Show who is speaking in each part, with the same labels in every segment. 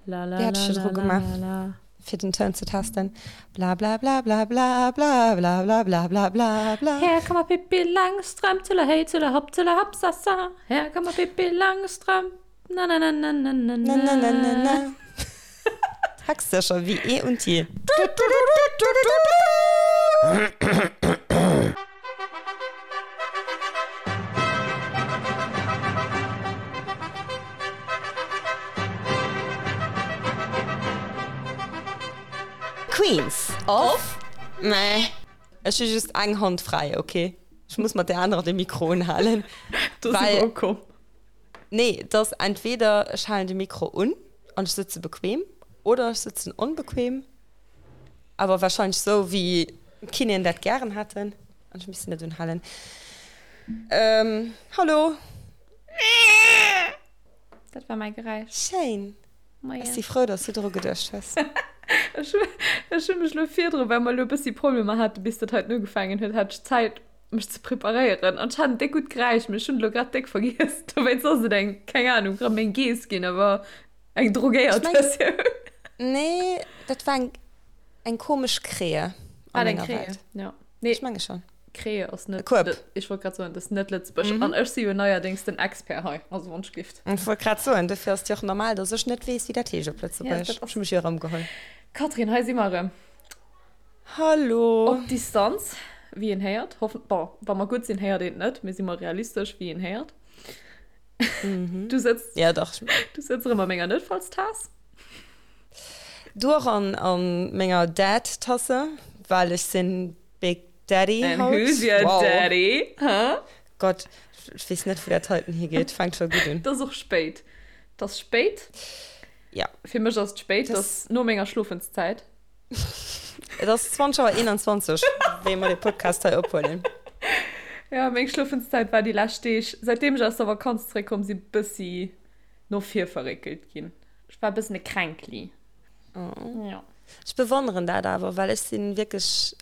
Speaker 1: La la
Speaker 2: Wéi hat
Speaker 1: la
Speaker 2: ech virdru
Speaker 1: la la
Speaker 2: gemaach,
Speaker 1: la la.
Speaker 2: fir den Toun ze testen? Bla bla bla bla bla bla bla bla bla bla bla bla.
Speaker 1: Her kommer Pippi Langstrømp, tulla hei, tulla hopp, tulla hopp, sa sa. Her kommer Pippi Langstrømp, na na na na na na
Speaker 2: Na na na na
Speaker 1: na.
Speaker 2: na. Textsécher wéi eh und je. Queens of meh. Ech hu just eng Hand fräi, ok? Ech muss mat där anerer de Mikro unhalen.
Speaker 1: Do si mer ukomm.
Speaker 2: Nee, et ass entweder ech halen de Mikro un an ech sëtze bequem oder ech sëtzen onbequem. Awer wahrscheinlech sou wéi d'Kinéen dat gären hätten. An ech misst net unhalen. Ähm, hallo.
Speaker 1: Dat war mäi Geräisch.
Speaker 2: Schéin.
Speaker 1: Moien.
Speaker 2: Ech si frou, dass du dru geduecht hues.
Speaker 1: Ech hu, ech hu mech lo virdru, well mer lo e bëssi Problemer hate bis dat heiten ugefaangen huet, hat ech Zäit mech ze preparéieren an ech hat en déck gutt Geräisch, mee ech hunn et lo grad déck vergiess. Dowéinst ass et eng, keng Anung, rëm eng Geess ginn, awer eng drogéiert Versioun.
Speaker 2: Nee, dat war eng, eng komesch Krähe
Speaker 1: an menger Welt. Ja.
Speaker 2: Nee, ech menge schon.
Speaker 1: Krähe ass net.
Speaker 2: Kueb.
Speaker 1: Ech wollt grad soen, dat ass net Lëtzebuerg. An ech si jo neierdéngs den Expert hei, also wann ech gift.
Speaker 2: Ech wollt grad soen, dofir ass et jo och normal, dass ech net weess, wéi dat heescht op Lëtzebuergesch.
Speaker 1: Ja, dat ass.
Speaker 2: Ech hu mech jo erëmgeholl.
Speaker 1: Catherine, hei si mer erëm.
Speaker 2: Hallo.
Speaker 1: Op Distanz, wéi een héiert. Hoffen, bon, wa mer gutt sinn, héiert een et net, mee si mer realistesch, wéi een héiert. Du sëtz.
Speaker 2: Ja, dach.
Speaker 1: Du sëtz erëm a menger Noutfallstaass.
Speaker 2: Du och an, an menger Dad-Tasse, well ech sinn Big Daddy
Speaker 1: And
Speaker 2: haut.
Speaker 1: who's your
Speaker 2: Wow.
Speaker 1: daddy? Huh?
Speaker 2: Gott, ech weess net, wou dat heiten higeet. Fänkt scho gutt un.
Speaker 1: Et ass och spéit. Et ass spéit.
Speaker 2: Ja.
Speaker 1: Fir mech ass et spéit, et ass no menger Schlofenszäit.
Speaker 2: Et ass 20 Auer 21, wéi mer de Podcast hei ophuelen.
Speaker 1: Ja, meng Schlofenszäit war déi lescht Deeg, säitdeem ech aus der Vakanz zeréckkomm sinn, bëssi no vir verréckelt ginn. Ech war e bëssen e Kränkli.
Speaker 2: Oh.
Speaker 1: Ja.
Speaker 2: Ech bewonneren dat awer, well ech sinn wierklech,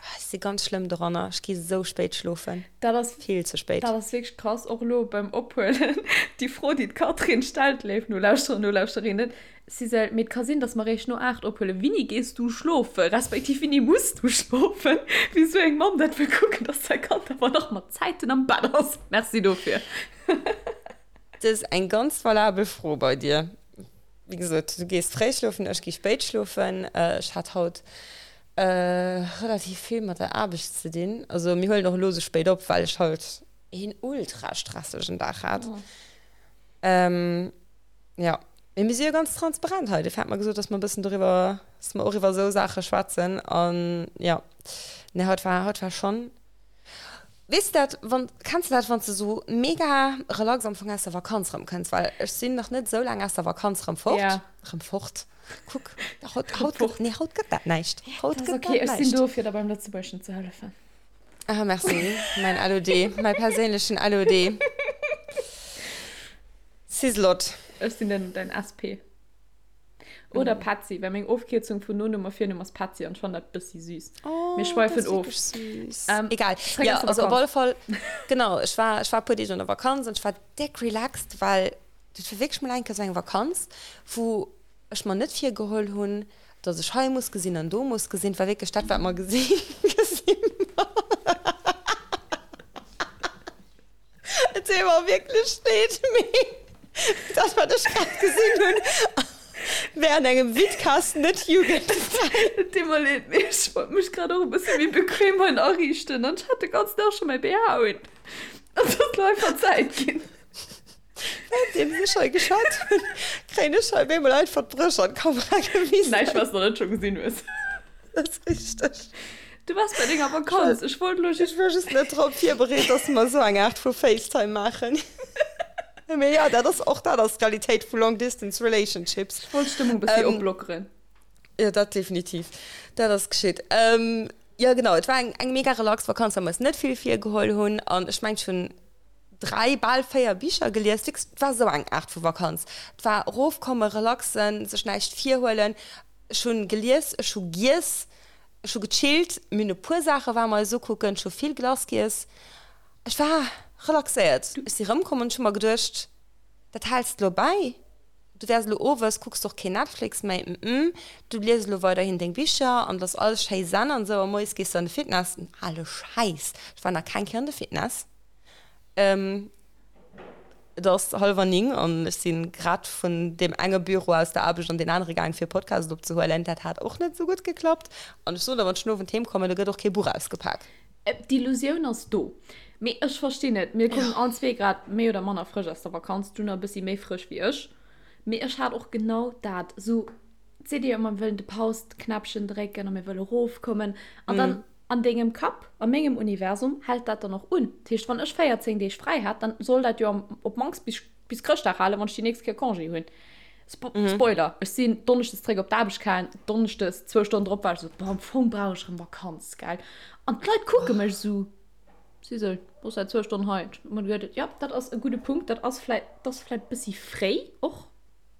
Speaker 2: ech si ganz schlëmm doranner. Ech gi sou spéit schlofen.
Speaker 1: Dat ass,
Speaker 2: Vill ze spéit.
Speaker 1: dat ass wierklech krass, och elo beim Ophuelen, déi Fro, déi d'Catherine stellt, léif Nolauschterer, Nolauschterinnen, Sisel, mee et ka sinn, dass mer réischt no 8 ophuelen. Wini gees du schlofen, respektiv wini muss du schlofen? Wéi sou eng Mamm dat wëll kucken, dass säi Kand awer nach mat Zäiten am Bett ass. Merci dofir.
Speaker 2: Dat ass eng ganz valabel Fro bei dir. Wéi gesot, du gees fréi schlofen, ech gi spéit schlofen. Ech hat haut relativ vill mat der Aarbecht ze dinn. Also mir huelen och elo sou spéit op, well ech haut een ultra stressegen Dag hat. Jo, mee mir si jo ganz transparent hei. Dofir hat mer gesot, dass mer e bëssen doriwwer, dass mer och iwwer esou Saache schwätzen. An jo, nee, haut war, haut war schonn, weess de dat, wann, kenns de dat, wann s de esou mega relax am Fong aus der Vakanz erëmkënns? Well ech sinn nach net esou laang aus der Vakanz erëm fort.
Speaker 1: Ja.
Speaker 2: Erëm fort. Kuck, haut, haut gëtt, nee, haut gëtt dat näischt. Haut
Speaker 1: Dat ass
Speaker 2: gëtt
Speaker 1: okay,
Speaker 2: dat
Speaker 1: ech sinn
Speaker 2: näischt.
Speaker 1: do, fir der beim Lëtzebuergeschen ze hëllefen.
Speaker 2: Ah, merci, mäin LOD, mäi perséinlechen LOD. Sislot.
Speaker 1: Ech sinn den dein SP. Oder Petzi, well meng Ofkierzung vun Nonumm a Virnumm ass Petzi an ech fannen dat bëssi süß.
Speaker 2: Oh,
Speaker 1: Mir schweifen
Speaker 2: dat ass
Speaker 1: of.
Speaker 2: wierklech süß.
Speaker 1: Ähm,
Speaker 2: Egal.
Speaker 1: zréck
Speaker 2: Ja,
Speaker 1: aus der
Speaker 2: also op alle
Speaker 1: Vakanz.
Speaker 2: Fall, genau, ech war, ech war e puer Deeg an der Vakanz an ech war déck relaxed, well dat war wierklech mol eng Kéier esou eng Vakanz, wou ech mer net virgeholl hunn, dass ech hei muss gesinn an do muss gesinn. Et war wierklech dat, wat mer gesinn, gesinn. Et deet mer wierklech leed, mee dat, wat ech grad gesinn hunn, wär an engem Vidcast net jugendfräi.
Speaker 1: Et deet mer leed, mee ech wollt mech grad och e bësse méi bequem hei ariichten an ech hat de ganzen Dag scho mäi BH un. An et ass lo einfach Zäit ginn.
Speaker 2: Währenddeems ech hei geschwat hunn, kréien ech hei op eemol einfach d'Brësch an d'Kamera gewisen.
Speaker 1: Näischt, wat s de nach net scho gesinn hues.
Speaker 2: Dat ass richteg.
Speaker 1: Du waars bei denger Vakanz. Ech wollt elo
Speaker 2: just. Ech war just net drop virbereet, dass mer esou eng Aart vu FaceTime maachen. Mee jo, dat ass, och dat ass d'Realitéit vu Long Distance Relationships.
Speaker 1: Ech wollt d'Stëmmung e bëssi oplockeren.
Speaker 2: Jo, dat definitiv. Dat ass geschitt. Jo, genau, et war eng, eng mega relax Vakanz, well mer eis net vill virgeholl hunn. An ech mengen, ech hunn 3, bal 4 Bicher gelies. Wierklech, et war esou eng Aart vu Vakanz. Et war erofkommen, relaxen, sech näischt virhuelen. Ech hunn gelies, ech hu giess, ech hu gechillt, mir hunn e puer Saache war mer eis ukucken, ech hu vill Glace giess. Ech war relaxéiert. Ech si rëmkomm an ech hu mer geduecht, dat häls de lo bäi. Du wäers elo owes, kucks de och keen Netflix méi, mm, du lies elo weiderhin deng Bicher an et ass alles schéi zen an esou a moies gees de an de Fitness. Den ale Schäiss, ech war nach keng Kéier an de Fitness. Et ass hallwer 9 an ech si grad vun deem enge Büro aus der Aarbecht an deen anere gaang fir e Podcast opzehuelen. Dat hat och net esou gutt geklappt. An ech soen der, wann ech den Owend heem kommen, da gëtt och kee Buch ausgepak.
Speaker 1: D'Illusioun ass do. Mee ech verstinn et. Mir kommen allen zwee grad méi oder manner frësch aus der Vakanz. Du nach e bëssi méi frësch wéi ech. Mee ech hat och genau dat. Esou, et seet ee jo ëmmer, mir wëllen de Paus-Knäppchen drécken a mir wëlle rofkommen. An dann an dengem Kapp, a mengem Universum, hält dat dann och un. Dat heescht, wann ech 14 Deeg fräi hat, dann soll dat jo am, op d'mannst bis, bis Chrëschtdag halen, wann ech déi nächst Kéier Congé hunn. Spo Spoiler, ech sinn donneschdes zréck op d'Aarbecht gaang, donneschdes zwou Stonnen drop war ech esou, boah, am Fong brauch ech erëm Vakanz, gell. An d'Leit kucke mech esou, Sisel, bass säit zwou Stonnen hei. Ech hu mer geduet, jo, dat ass e gudde Punkt, dat ass vläit, dat ass vläit e bëssi fréi och.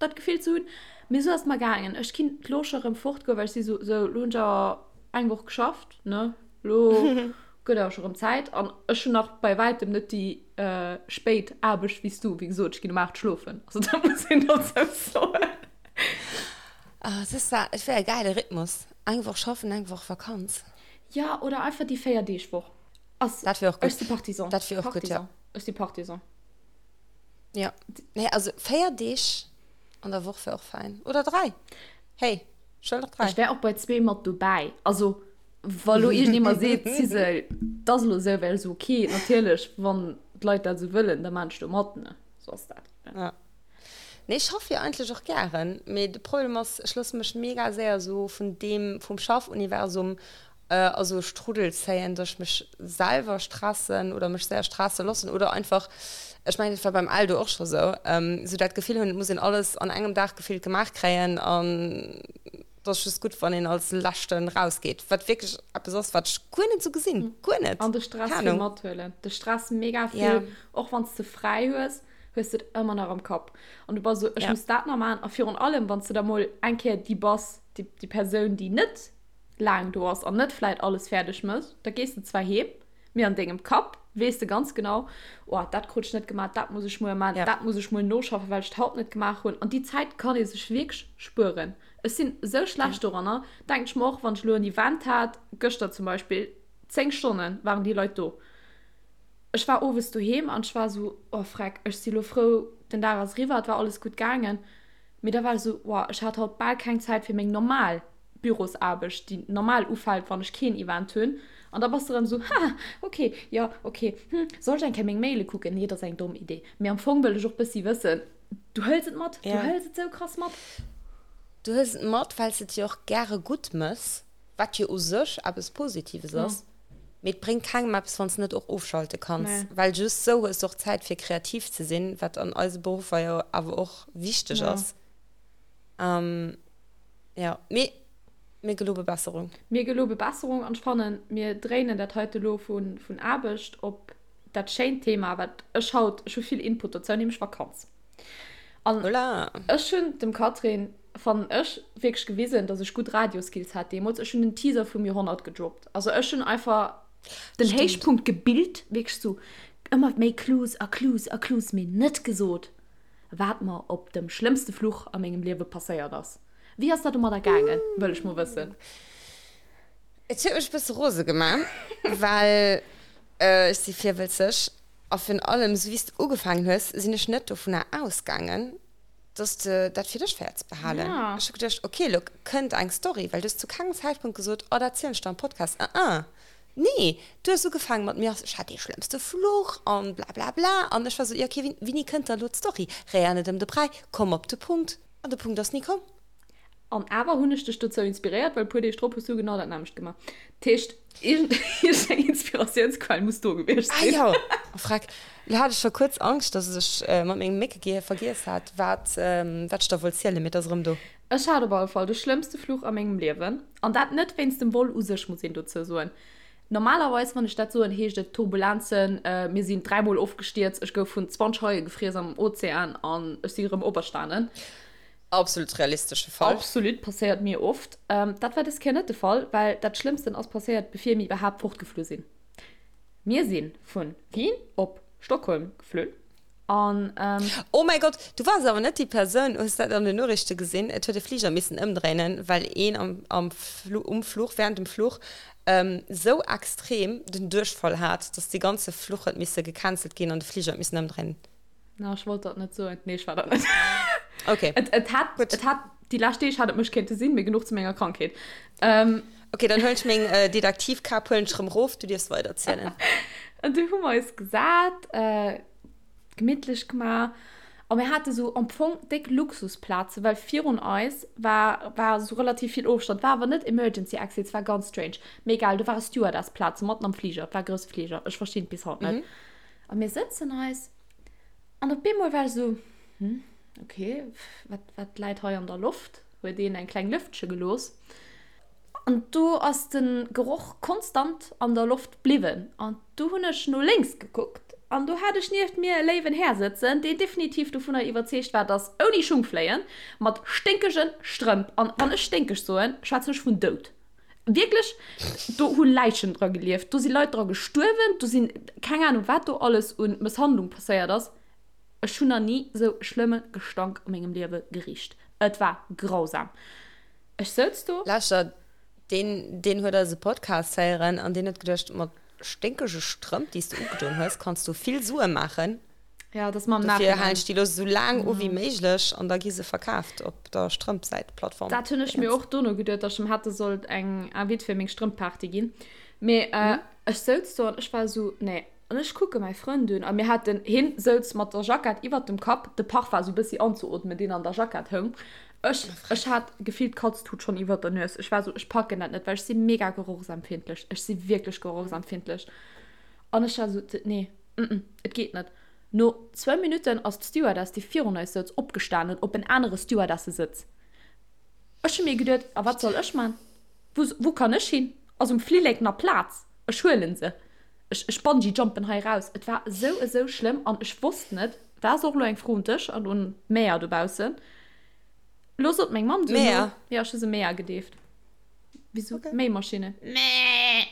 Speaker 1: dat Gefill ze hunn. Mee esou ass et mer gaangen. Ech kinnt lo scho rëm fortgoen, well ech si sou, sou, lo hunn ech awer eng Woch geschafft, ne, lo gëtt awer scho rëm Zäit. An ech hunn nach bei wäitem net déi spéit Aarbecht wéi s du. Wéi gesot, ech ginn um 8 schlofen. Also dat muss een dozou soen.
Speaker 2: Ah, et ass zwar, et wär e gäile Rhythmus, eng Woch schaffen, eng Woch Vakanz.
Speaker 1: Jo, oder einfach déi Véier-Deeg-Woch. Ass,
Speaker 2: Dat wär och
Speaker 1: ech si
Speaker 2: gutt.
Speaker 1: Partisan.
Speaker 2: Dat wier och gutt, jo.
Speaker 1: Partisan. Ech si Partisan.
Speaker 2: Ja, nee, also 4 Deeg an der Woch wär och fein. Oder 3. Hey, ech wëll och 3.
Speaker 1: Ech wär och bei zwee mat dobäi. Also, wa lo iergendee mer seet, Sisel, 't ass elo esou, wär ech esou, ok, natierlech, wann d'Leit dat esou wëllen, da maan ech do mat, ne? Sou ass dat,
Speaker 2: ne? Ja. Nee, ech schaffe jo eigentlech och gären, mee de Problem ass, ech loosse mech mega séier esou vun deem, vum Schaffuniversum a sou e Strudel zéien, dass ech mech selwer stressen oder mech séier stresse loossen oder einfach, ech mengen dat war beim Eldo och scho sou, sou dat Gefill hunn, et muss een alles an engem Dag gefillt gemaach kréien an et ass just gutt, wann een als Leschten rausgeet, wat wierklech eppes ass, wat ech guer net sou gesinn, guer net,
Speaker 1: An de Stress
Speaker 2: keng
Speaker 1: vill
Speaker 2: Ahnung.
Speaker 1: mathuelen, de Stress mega
Speaker 2: Ja.
Speaker 1: vill, och wann s de fräi hues, hues de et ëmmer nach am Kapp an du bass sou, ech
Speaker 2: Ja.
Speaker 1: muss dat nach maachen a virun allem, wann s de da mol eng Kéier déi bass, déi déi Persoun, déi net laang do ass an net vläit alles fäerdeg mécht, da gees de zwar heem, mee an dengem Kapp weess de ganz genau, oh, dat krut ech net gemaach, dat muss ech muer maachen,
Speaker 2: Ja.
Speaker 1: dat muss ech muer noschaffen, well ech et haut net gemaach hunn. An déi Zäit kann ee sech wierklech spueren. Ech sinn esou
Speaker 2: Ja.
Speaker 1: schlecht doranner, denken ech mer och, wann ech elo en Event hat, gëschter zum Beispill, 10 Stonne waren déi Leit do. Ech war owes doheem an ech war esou, oh freck, ech si lo frou, den Dag ass eriwwer, et war alles gutt gaangen. Mee da war ech esou, wow, ech hat haut bal keng Zäit fir meng normal Bürosaarbecht, déi normal ufält, wann ech keen Event hunn. An da bass de erëm esou, ha, ok, jo, ok, hm, soll ech eng Kéier meng Maile kucken? Nee, dat ass eng domm Idee. Mee am Fong wëll ech och bëssi wëssen, du hëls et mat, du
Speaker 2: Ja.
Speaker 1: hëls et sou krass mat.
Speaker 2: Du hëls et mat, well s de et jo och gäre gutt mëss, wat jo u sech eppes Positives
Speaker 1: Ja.
Speaker 2: ass. Mee et bréngt kengem eppes, wann s de net och ofschalte kanns,
Speaker 1: Nee.
Speaker 2: well just sou hues de och Zäit fir kreativ ze sinn, wat an eise Beruffer jo awer och wichteg
Speaker 1: Ja.
Speaker 2: ass. Jo, mee mir gelobe Besserung.
Speaker 1: Mir gelobe Besserung an ech fannen, mir dréinen dat heite lo vun Aarbecht op dat schéint Thema, wat ech haut, ech hu vill Input dozou, nämlech Vakanz. An
Speaker 2: Voilà.
Speaker 1: ech hunn dem Catherine, fannen ech, wierklech gewisen, dass ech gutt Radioskills hat deemools. Ech hunn den Teaser vum Joerhonnert gedroppt. Also ech hunn einfach den
Speaker 2: Stimmt.
Speaker 1: Héichpunkt gebilt, wierklech sou ëmmer méi Clues a Clues a Clues, mee net gesot, wat mer op dem schlëmmste Fluch a mengem Liewe passéiert ass. Wéi ass dat domadder gaangen, wëll ech mol wëssen.
Speaker 2: Et huet mech e bësse rose gemaach, well ech si virwëlzeg a virun allem, esou wéi s de ugefaangen hues, sinn ech net dovunner ausgaangen, dass de dat fir dech wäerts behalen.
Speaker 1: Ja.
Speaker 2: Ech hu geduecht, ok, elo kënnt eng Story, well du hues zu kengem Zäitpunkt gesot, oh, dat zielen ech der am Podcast. Ah, ah. Nee, du hues ugefaangen mat mir, ech hat dee schlëmmste Fluch an blablabla an ech war esou, jo ok, wéini kënnt da elo d'Story? Réier net ëm de Bräi, komm op de Punkt. An de Punkt ass ni komm.
Speaker 1: An awer hunn ech dech dozou inspiréiert, well e puer Deeg drop hues du genau dat nämmlecht gemaach. Dat heescht, iergendeng Inspiratiounsquell muss do gewiescht
Speaker 2: Ah
Speaker 1: sinn.
Speaker 2: jo, oh freck, lo hat ech scho kuerz Angscht, dass ech mat mengem Méckegehier vergiess hat, wat wat ech der wollt zielen, mee et ass erëm do.
Speaker 1: Ech hat op alle Fall de schlëmmste Fluch a mengem Liewen. An dat net wéinst dem Vol u sech, muss een dozou soen. Normalerweis, wann ech dat soen, heescht et Turbulenzen, mir sinn dräimol ofgestierzt, ech gouf vun 20 Haie gefriess am Ozean an ech si erëm operstanen.
Speaker 2: Absolut realistesche Fall.
Speaker 1: Absolut, passéiert mir oft. Dat war dës Kéier net de Fall, well dat Schlëmmsten ass passéiert, bevir mir iwwerhaapt fortgeflu sinn. Mir si vu Wien op Stockholm geflunn. An, ähm.
Speaker 2: Oh mäi Gott, du waars awer net déi Persoun, hues dat an den Noriichte gesinn? Et huet e Fliger missen ëmdréinen, well een am, am Flu, um Fluch, während dem Fluch, ähm, sou extrem den Duerchfall hat, dass dee ganze Fluch huet misse gecancelt ginn an de Fliger huet missen ëmdréinen.
Speaker 1: Na, ech wollt dat net soen. Nee, ech war dat net.
Speaker 2: Okay.
Speaker 1: Et, et hat,
Speaker 2: Gutt.
Speaker 1: et hat, déi lescht Deeg hat et mech kéinte sinn, mee genuch zu menger Krankheet. Ähm.
Speaker 2: Okay, dann huelen ech meng äh, Detektivkap huelen ech rëm rof, du dierfs weiderzielen.
Speaker 1: An du hu mer eis gesat, äh, gemittlech gemaach. A mir hate sou am Fong déck Luxusplaze, well virun eis war, war sou relativ vill Ofstand. War awer net Emergency Exits, war ganz strange. Mee egal, do ware Stewardessplaze matten am Fliger. Et war e grousse Fliger, ech verstinn et bis haut net. A mir sëtzen eis an op eemol war ech sou, Hm, okay, wat, wat läit hei an der Loft? Huet een eng kleng Lëftche gelooss. An do ass de Geroch konstant an der Loft bliwwen. An du hunn ech no lénks gekuckt an do hat ech nieft mir e léiwen Här sëtzen, deen definitiv dovunner iwwerzeegt war, dass ouni Schung fléien, mat sténkege Strëmp, an wann ech sténkeg soen, schwätzen ech vun Doud, wierklech, do hu Läichen dra gelieft, do si Leit dra gestuerwen, do sinn, keng Anung wat do alles u Mësshandlung passéiert ass. Ech hunn nach ni sou e schlëmme Gestank a mengem Liewe gericht. Et war grausam. Ech souz do.
Speaker 2: Lauschter, deen, deen huet eise Podcast héieren an deen huet geduecht, mat sténkege Strëmp, déi s de ugedoen hues, kanns du vill Sue maachen.
Speaker 1: Ja, dat ass mer am
Speaker 2: Dofir
Speaker 1: Nachhinein.
Speaker 2: halen ech déi elo sou laang u wéi méiglech an da gi se verkaaft op der Strëmpsäit-Plattform.
Speaker 1: Dat hunn ech mir och dono geduet, datt ech em hätte sollt eng Invite fir meng Strëmpparty ginn. Mee ech souz do an ech war esou, nee. An ech kucke mäi Frënd un a mir haten, hien souz mat der Jackett iwwert dem Kapp, de Parfum esou bëssi anzeootmen, deen an der Jackett houng. Ech, ech hat gefillt d'Katz-Tut schonn iwwert der Nues. Ech war esou, ech packen dat net, well ech si mega gerochsempfindlech. Ech si wierklech gerochsempfindlech. An ech war esou, nee, mm, et geet net. No zwou Minutten ass d'Stewardess, déi virun eis souz, opgestanen op en anere Stewardessesëtz. Ech hu mir geduet, a wat soll ech man? Wou, wou kann ech hin? Ass um Flillek nach Plaz? Ech huelen se. Ech, ech bungee jumpen hei raus. Et war esou, esou schlëmm an ech wosst net, dat ass och elo eng Fro un dech an un d'Mäer dobaussen. Elo sot meng Mamm duerno,
Speaker 2: Mäer?
Speaker 1: jo, ech hu se Mäer gedeeft. Wéi
Speaker 2: Okay.
Speaker 1: Méimaschinne. Mäh!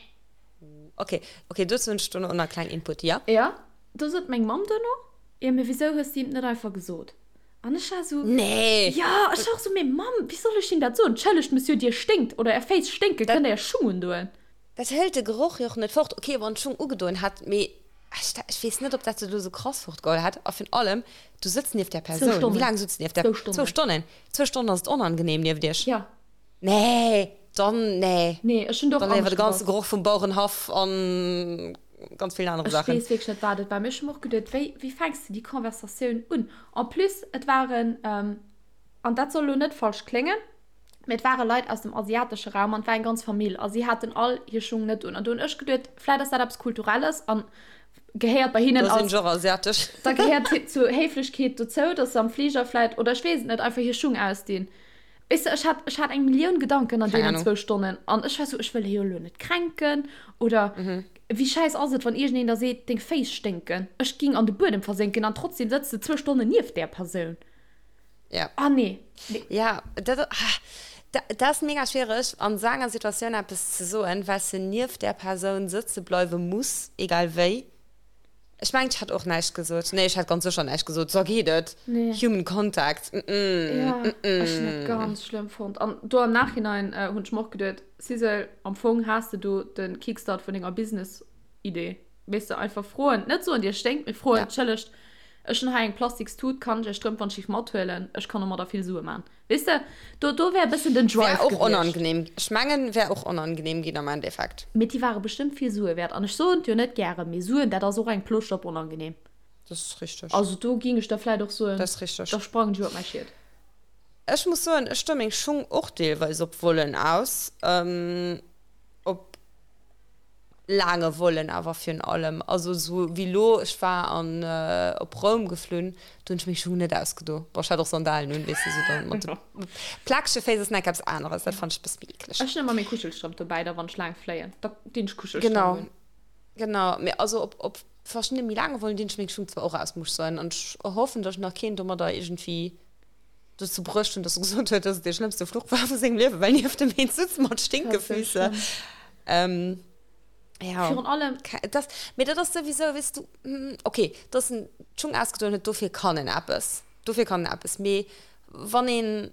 Speaker 2: Okay, okay, dozou hunn ech duerno och nach e klengen Input, ja?
Speaker 1: Jo, do sot meng Mamm duerno, jo, mee wisou hues de him et net einfach gesot? An ech war esou,
Speaker 2: Nee!
Speaker 1: Jo, ech war och esou, mee Mamm, wéi soll ech him dat soen? Entschëllegt, Monsieur, Dir sténkt oder Är Féiss sténken,
Speaker 2: Dat
Speaker 1: kënnt Der Är Schung undoen?
Speaker 2: Dat hëlt de Geroch jo och net fort. Ok, wann d'Schung ugedoen hätt, mee ech ech weess net, ob dat se elo sou krass fortgeholl hätt. A virun allem, du sëtz nieft där
Speaker 1: Zwou
Speaker 2: Persoun. Wéi
Speaker 1: Stonnen.
Speaker 2: laang sutz nieft där?
Speaker 1: Zwou Stonnen.
Speaker 2: Zwou Stonnen. Zwou Stonnen ass et onangenehm nieft iech.
Speaker 1: Ja.
Speaker 2: Nee, dann nee.
Speaker 1: Nee, ech hunn do och
Speaker 2: Dann léiwer
Speaker 1: anescht
Speaker 2: de ganze
Speaker 1: gebaut.
Speaker 2: Geroch vum Bauerenhaff an ganz villen anere
Speaker 1: Ech
Speaker 2: Saachen.
Speaker 1: weess wierklech net, wat et war. Mee ech hu mer och geduet, wéi, wéi fänks de déi Conversatioun un? En plus, et waren, an dat soll elo net falsch kléngen, Mee et ware Leit aus dem asiatesche Raum an et war eng ganz Famill a si haten all hir Schung net un. An do hunn ech geduet, vläit ass dat eppes Kulturelles an gehéiert bei hinnen
Speaker 2: Da sinn
Speaker 1: als,
Speaker 2: ech och asiatesch.
Speaker 1: da gehéiert zur Héiflechkeet dozou, dass se am Fliger vläit, oder ech weess et net, einfach hir Schung ausdinn. Weess de, ech hat, ech hat eng Millioun Gedanken an
Speaker 2: Keng
Speaker 1: deenen
Speaker 2: Ahnung.
Speaker 1: zwou Stonnen an ech war sou, ech wëll hie jo elo net kränken oder wéi schäiss ass et, wann iergendeen der seet, deng Féiss sténken. Ech ging an de Buedem versénken an trotzdem sëtz de zwou Stonnen nieft där Persoun.
Speaker 2: Ja.
Speaker 1: Ah nee. nee.
Speaker 2: Ja, dat, ah, dat, dat ass mega schwiereg an esou enger Situatioun eppes ze soen, well s de nieft där Persoun sëtze bleiwe muss, egal wéi. Ech mengen, ech hätt och näischt gesot. Nee, ech hätt ganz sécher näischt gesot. Sou geet et.
Speaker 1: Nee.
Speaker 2: Human Contact. Mm -mm.
Speaker 1: Ja,
Speaker 2: mm -mm.
Speaker 1: ech hunn dat ganz schlëmm fonnt. An do am Nachhinein äh, hunn ech mer och geduet, Sissel, am Fong has de do de Kickstart vun denger Business-Idee. Weess de, einfach froen, net soen, dir sténkt, mee froen,
Speaker 2: Ja.
Speaker 1: Entschëllegt, ech hunn hei eng plastiks Tut, kann ech är Strëmp wann ech mathuelen? Ech kann domadder vill Sue man. Weess de, do, do wär e bëssen den Drive
Speaker 2: Wär och
Speaker 1: gewiescht.
Speaker 2: onangenehm. Ech mengen, wär och onangenehm ginn am Endeffekt.
Speaker 1: Mee déi ware bestëmmt vill Sue wäert. An ech soen et jo net gären, mee Suen, dat ass och eng Plooscht op onangenehm.
Speaker 2: Dat ass richteg.
Speaker 1: Also do ging ech da vläit och soen,
Speaker 2: Dat ass richteg.
Speaker 1: da sprangen ech iwwer mäi Schiet.
Speaker 2: Ech muss soen, ech stoe meng Schung och deelweis op Vollen aus. Op. Laange Vollen awer virun allem. Also sou wéi lo, ech war an op Roum geflunn, do hunn ech meng Schung net ausgedo. Bon, ech hat och Sandalen un, weess de, sou dann mat de plakege Féiss ass nach eppes aneres, dat fannt ech e bësse méi eekleg.
Speaker 1: Ech hunn ëmmer meng Kuschelstrëmp dobäi, da wann ech laang fléien, da dinn ech Kuschelstrëmp
Speaker 2: Genau,
Speaker 1: un.
Speaker 2: genau. Mee also op op verschiddene méi laange Vollen dinn ech meng Schung zwar och aus, muss ech soen. An ech hoffen, datt ech nach keen domadder iergendwéi dozou bruecht hunn, datt e gesot huet, datt et dee schlëmmste Fluch war vu sengem Liewen, well nieft em een sutz mat
Speaker 1: Dat ass sou
Speaker 2: Stinkefüße.
Speaker 1: schlëmm.
Speaker 2: Ja.
Speaker 1: Virun allem.
Speaker 2: Das, mee dat ass souwisou, weess du, okay, dass en d'Schung ausgedoen huet, dofir kann en eppes. Dofir kann en eppes. Mee wann een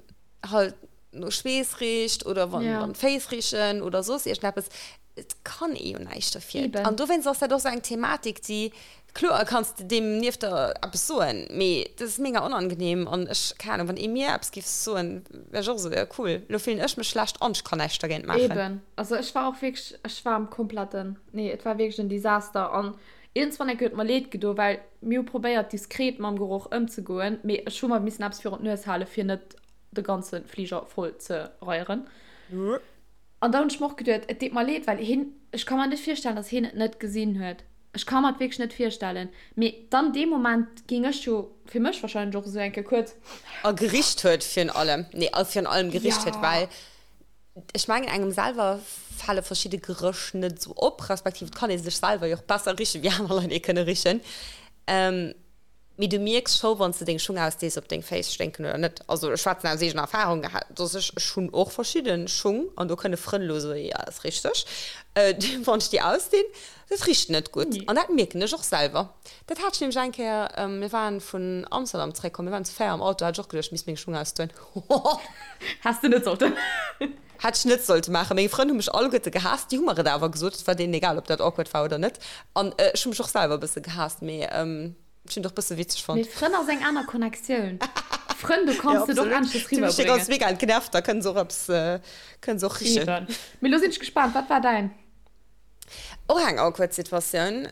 Speaker 2: halt no Schweess richt oder wann, ja. wann d'Féiss richen oder soss iergendeppes, et kann ee jo näischt dofir. Eben. An dowéinst ass dat och sou eng Thematik, déi, kloer kanns de deem nieft der eppes soen, mee dat ass mega onangenehm an ech, keng Ahnung, wann ee mir eppes géif soen, wär ech och esou, jo cool, lo fillen ech mech schlecht an ech kann näischt dergéint maachen.
Speaker 1: Eben. Also ech war och wierklech, ech war am kompletten, nee, et war wierklech en Desaster an iergendswann enke huet mer leed gedo, well mir hu probéiert diskret mam Geroch ëmzegoen, mee ech hu mer missen eppes virun d'Nues hale fir net de ganze Fliger voll ze reieren. An da hunn ech mer och geduet, et deet mer leed, well hien, ech ka mer net virstellen, datt hien et net gesinn huet. Ech ka mer et wierklech net virstellen. Mee dann dee Moment géing ech jo fir mech wahrscheinlech och esou eng Kéier kuerz.
Speaker 2: A gericht huet virun allem, nee, a virun allem gericht huet, well ech mengen, engem selwer fale verschidde Geréch net esou op, respektiv et kann ee sech selwer jo och besser richen, wéi aner Leit ee kënne richen. Mee du mierks scho wann s de deng Schung ausdees ob deng Féiss sténken oder net. Also ech schwätzen aus eegener Erfahrung, dass ech, ech hunn och verschidde Schung an do kënne Frënn elo soen, jo dat ass richteg, wann ech déi ausdinn, dat richt net gutt an dat mierken ech och selwer. Dat hat ech nämlech eng Kéier, mir waren vun Amsterdam zeréckkomm, mir waren zu 4 am Auto, hat ech och geduecht ech misst meng Schung ausdoen.
Speaker 1: Häss de net sollten.
Speaker 2: Hätt ech net sollte maachen. Meng Frënn hu mech alleguerte gehaasst, déi hu mer et awer gesot, et war deenen egal ob dat awkward war oder net an ech hu mech och selwer e bësse gehaasst, mee ech hunn et och bësse witzeg
Speaker 1: fonnt. Mee Frënn ass eng aner Connectioun. Frënn, do kanns de et och aneschters
Speaker 2: Déi hu mech
Speaker 1: riwwerbréngen.
Speaker 2: ganz mega entnervt, da kënne se och eppes, kënne se och richen.
Speaker 1: Eben. Mee lo sinn ech gespaant, wat war däin?
Speaker 2: Och eng awkward Situatioun,